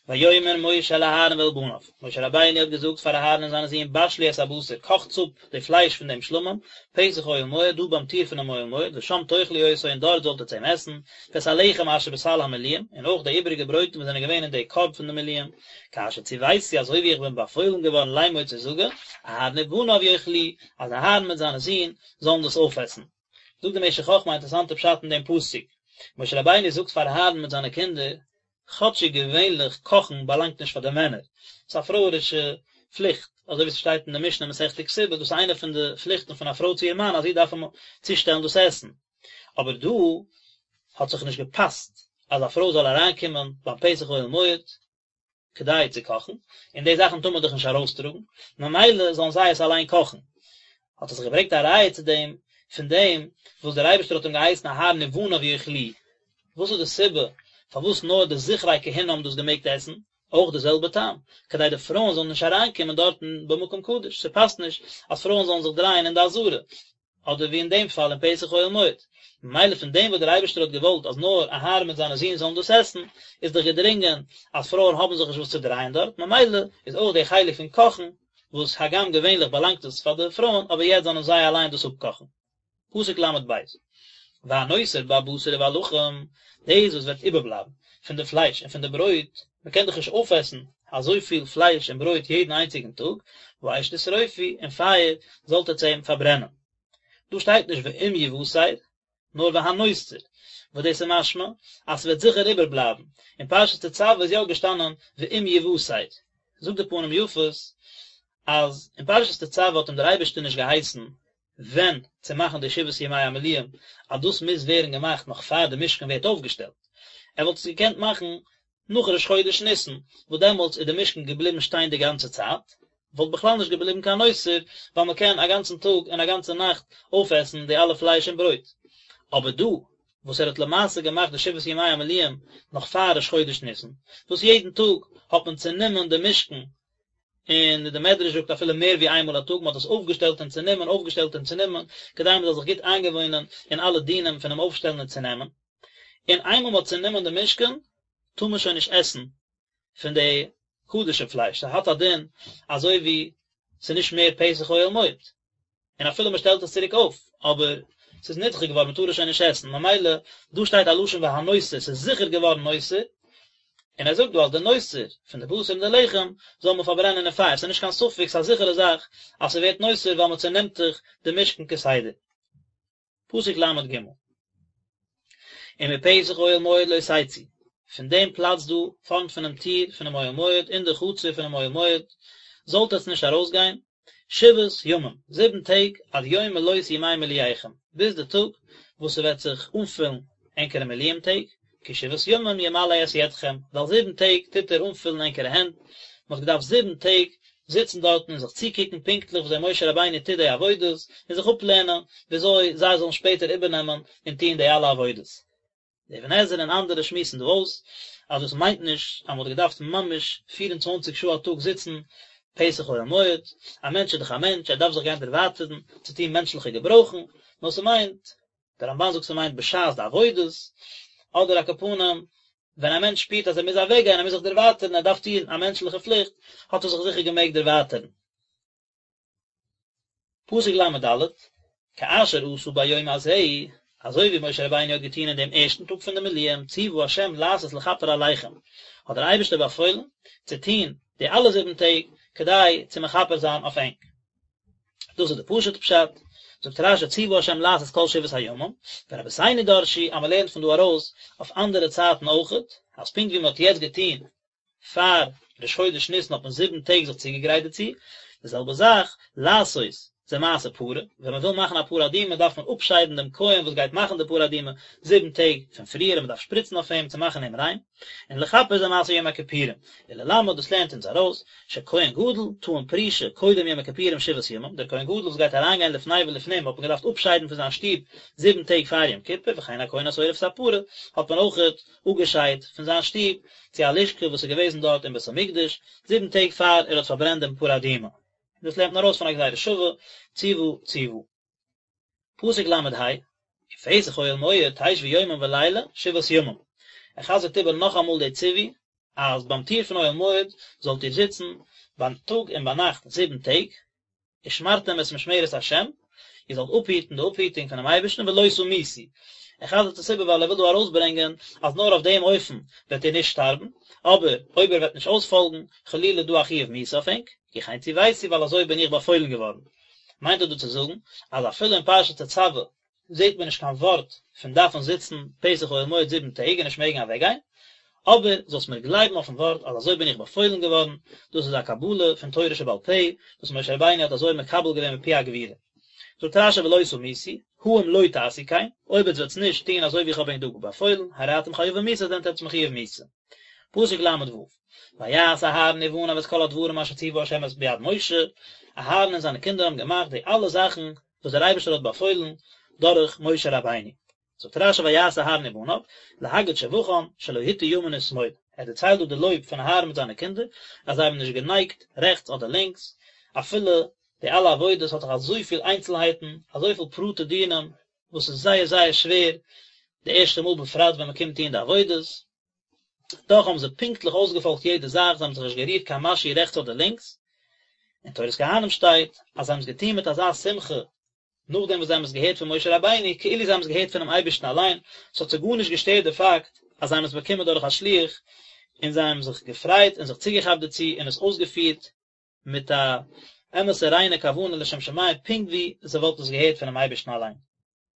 A: ויאמר משה אל אהרן ואל בניו, משה רבינו האט געזאגט פאר אהרן און זיינע זין בשלו את הבשר, קאכטס אפ די פלייש פון דעם שלמים, פתח אוהל מועד, דא ביים טיר פונעם אוהל מועד, ושם תאכלו אותו און דארט זאלט עטס אים עסן, ואת הלחם אשר בסל המילואים, און אויך די איבעריגע ברויטן וואס זענען געווען אין די קארב פון די מילואים, כאשר צויתי אזוי ווי איך בין באפוילן געווארן לאמור צו זאגן, אהרן ובניו יאכלוהו, אז אהרן מיט זיינע זין זאלן דאס אויפעסן. זאגט די משך חכמה א אינטערעסאנטע פשט אין דעם פסוק, משה רבינו זאגט פאר אהרן מיט זיינע קינדער, כאטשיג געווענליך קאכן באלאנגט נישט פאר די מענער, ס'איז א פרויערישע פליכט, אזוי ווי ס'שטייט אין די משנה מסכת כתובה, דאס איז איינע פון די פליכטן פון א פרוי צו איר מאן אז זי דארף אים צושטעלן דאס עסן, אבער דא האט זיך נישט געפאסט אז א פרוי זאל אריינקומען ביים פתח אוהל מועד, כדי צו קאכן, און די זאכן טאר מען דאך נישט ארויסטראגן, ממילא זאלן זיי עס אליין קאכן. האט ער זיך געברענגט א ראיה צו דעם, פון דעם וואס דער אייבערשטער האט אים געהייסן אהרן ובניו יאכלוהו. וואס איז די סיבה פארוואס נאר די זכרי כהונה האבן דאס געמעגט עסן? אויך די זעלבע טעם, כדי די פרויען זאלן נישט אריינקומען דארטן במקום קדוש, ס'פאסט נישט אז פרויען זאלן זיך דרייען אין די עזרה, אדער ווי אין דעם פאל אין פתח אוהל מועד. ממילא פון דעם וואס דער אייבערשטער האט געוואלט אז נאר אהרן מיט זיינע זין זאלן דאס עסן, איז דאך געדרינגען אז פרויען האבן זיך נישט וואס צו דרייען דארט, ממילא איז אויך דער חלק פון קאכן, וואס הגם געווענליך באלאנגט עס פאר די פרויען, אבער יעצט זאלן זיי אליין דאס אפקאכן. פסוק ל"ב, והנותר בבשר ובלחם, דאס וואס וועט איבערבלייבן פון די פלייש און פון די ברויט, מען קען דאך נישט אויפעסן אזויפיל פלייש און ברויט יעדן איינציגן טאג, באש תשרופו, אין פייער זאלט עטס אים פארברענען. דא שטייט נישט ואם יותר, נאר והנותר, וואס דאס איז משמע אז ס'וועט זיכער איבערבלייבן, אין פרשת תצוה איז יא געשטאנען ואם יותר. זאגט די פנים יפות אז אין פרשת תצוה האט אים דער אייבערשטער נישט געהייסן ווען צו מאכן די שבעת ימי המילואים, אז דאס מוז ווערן געמאכט נאך פאר די משכן ווערט אויפגעשטעלט. ער וואלט עס געקענט מאכן נאך ראש חודש ניסן, וואס דעמאלטס איז די משכן געבליבן שטיין די גאנצע צייט, וואלט בכלל נישט געבליבן קיין נותר, ווייל מען קען א גאנצן טאג און א גאנצע נאכט אויפעסן די אלע פלייש און ברויט. אבער דא, וואס ער האט למעשה געמאכט די שבעת ימי המילואים נאך פאר ראש חודש ניסן, וואס יעדן טאג האט מען צענומען די משכן און די מדרש זאגט אפילו מער ווי איינמאל א טאג, מען האט עס אויפגעשטעלט און צענומען, אויפגעשטעלט און צענומען, כדי מען זאל זיך גוט איינגעוואוינען אין אלע דינים פונעם אויפשטעלן און צונעמען. און איינמאל מען האט צענומען די משכן, טאר מען שוין נישט עסן פון די קדשים פלייש, ס'האט א דין אזוי ווי ס'איז נישט מער פתח אוהל מועד. און אפילו מען שטעלט עס צוריק אויף, אבער ס'איז נדחה געווארן, מען טאר עס שוין נישט עסן, ממילא דא שטייט א לשון והנותר, ס'איז זיכער געווארן נותר, און ער זאגט דא אז די נותר פון די בשר און די לחם זאל מען פארברענען אין פייער, ס'איז נישט קיין ספק, ס'איז א זיכערע זאך אז ס'ווערט נותר ווייל מען צענעמט דאך די משכן כסדר. פסוק ל"ג. ומפתח אוהל מועד לא תצאו, פון דעם פלאץ דא פארנט פונעם טיר פונעם אוהל מועד אין די חצר פונעם אוהל מועד זאלט עטס נישט ארויסגיין, שבעת ימים, זיבן טעג, עד יום מלאות ימי מילואיכם, ביז די טאג וואס ס'וועט זיך אנפילן ענקערע מילואים טעג, כי שבעת ימים ימלא את ידכם, ווייל זיבן טעג טוט ער אנפילן ענקערע הענט, מען האט געדארפט זיבן טעג זיצן דארטן און זיך צוקוקן פונקטליך וויאזוי משה רבינו טוט די עבודות, און זיך אפלערנען וויאזוי זיי זאלן שפעטער איבערנעמען און טון די אלע עבודות. דער אבן עזרא און אנדערע שמועסן דא אויס אז דאס מיינט נישט אז מען האט געדארפט ממש פיר און צוואנציג שעה א טאג זיצן פתח אוהל מועד, א מענטש איז דאך א מענטש, ער דארף זיך גיין דערווייטערן צו טון מענטשליכע געברויכן, נאר ס'מיינט, דער רמב"ן זאגט ס'מיינט בשעת די עבודות, אדער על כל פנים ווען א מענטש שפירט אז ער מוז אוועקגיין, ער מוז זיך דערווייטערן, ער דארף טון א מענטשליכע פליכט, האט ער זיך זיכער געמעגט דערווייטערן. פסוק ל"ד, כאשר עשה ביום הזה, אזוי ווי משה רבינו האט געטון אין דעם ערשטן טאג פון די מילואים, ציוה השם לעשות לכפר עליכם, האט דער אייבערשטער באפוילן צו טון די אלע זיבן טעג, כדי צו מכפר זיין אויף ענק. דאס איז די פשוט'ע פשט, זאגט רש"י ציוה השם לעשות כל שבעת הימים, ורבותינו דרשו אז מען לערנט פון דא ארויס אויף אנדערע צייטן אויכעט, אז פונקט ווי מען האט יעצט געטון פאר ראש חודש ניסן האט מען זיבן טעג זיך צוגעגרייט דערצו, די זעלבע זאך, לעשות זה מעשה פרה, ווען מען וויל מאכן א פרה אדומה דארף מען אפשיידן דעם כהן וואס גייט מאכן די פרה אדומה זיבן טעג פון פריער און מען דארף שפריצן אויף אים צו מאכן אים ריין, און לכפר זה מעשה יום הכיפורים, וללמד דאס לערנט אונז ארויס, שכהן גדול טעון פרישה קודם יום הכיפורים שבעת ימים, דער כהן גדול וואס גייט אריינגיין לפני ולפנים האט מען געדארפט אפשיידן פון זיין שטוב זיבן טעג פאר יום כיפור, וכן הכהן השורף את הפרה האט מען אויכעט אפגעשיידט פון זיין שטוב צו א לשכה וואס איז געוועזן דארט אין בית המקדש זיבן טעג פאר ער האט פארברענט דעם פרה אדומה. דאס לערנט מען ארויס פון א גזירה שווה, ציוה ציוה. פסוק ל"ה, ופתח אוהל מועד תשבו יומם ולילה שבעת ימים. ער חזר'ט איבער נאכאמאל די ציווי, אז ביים טיר פון אוהל מועד זאלט איר זיצן ביים טאג און ביינאכט זיבן טעג, ושמרתם את משמרת השם, איר זאלט אפהיטן די אפהיטונג פונעם אייבערשטן ולא תמותו. ער חזר'ט עס איבער ווייל ער וויל דא ארויסברענגען אז נאר אויף דעם אופן וועט איר נישט שטארבן, אבער אויב איר וועט נישט אויספאלגן, חלילה איז דא א חיוב מיתה אויף ענק, כי כן צויתי ווייל אזוי בין איך באפוילן געווארן. מיינט ער דא צו זאגן אז אפילו אין פרשת תצוה זעט מען נישט קיין ווארט פון דארפן זיצן פתח אוהל מועד זיבן טעג און נישט מעגן אוועקגיין, אבער זאלסט מיר גלייבן אויפן ווארט אז אזוי בין איך באפוילן געווארן, דאס איז א קבלה פון תורה שבעל פה וואס משה רבינו האט אזוי מקבל געווען מפי הגבורה. זאגט רשי ולא תמותו, הא אם לא תעשו כן, אויב עטס וועטס נישט טון אזוי ווי איך האב ענק דא באפוילן, הרי אתם חייבים מיתה זענט עטס מחויב מיתה. פסוק ל ו, ויעש אהרן ובניו את כל הדברים אשר ציווה ה' את ביד משה, אהרן און זיינע קינדער האבן געמאכט די אלע זאכן וואס דער אייבערשטער האט באפוילן דורך משה רבינו. זאגט רשי ויעש אהרן ובניו, להגיד שבחן שלא הטו ימין ושמאל, ער דערציילט דא די לויב פון אהרן מיט זיינע קינדער, אז זיי האבן נישט גענייגט רעכטס אדער לינקס, אפילו די אלע עבודות האט דאך אזויפיל איינצלהייטן, אזויפיל פרטי דינים, וואס איז זייער זייער שווער די ערשטע מאל בפרט ווען מען קומט טון די עבודות, דאך האבן זיי פונקטליך אויסגעפאלגט יעדע זאך, זיי האבן זיך נישט גערירט קיין משהו רעכטס אדער לינקס, אין תורת כהנים שטייט אז זיי האבן עס געטון מיט אזא שמחה נאכדעם וואס זיי האבן עס געהערט פון משה רבינו, כאילו זיי האבן עס געהערט פונעם אייבערשטן אליין, עס האט זיי גארנישט געשטערט די פאקט אז זיי האבן עס באקומען דורך א שליח, און זיי האבן זיך געפרייט און זיך צוגעכאפט דערצו און עס אויסגעפירט מיט א אמת'ע ריינע כוונה לשם שמים פונקט ווי זיי וואלטן עס געהערט פונעם אייבערשטן אליין.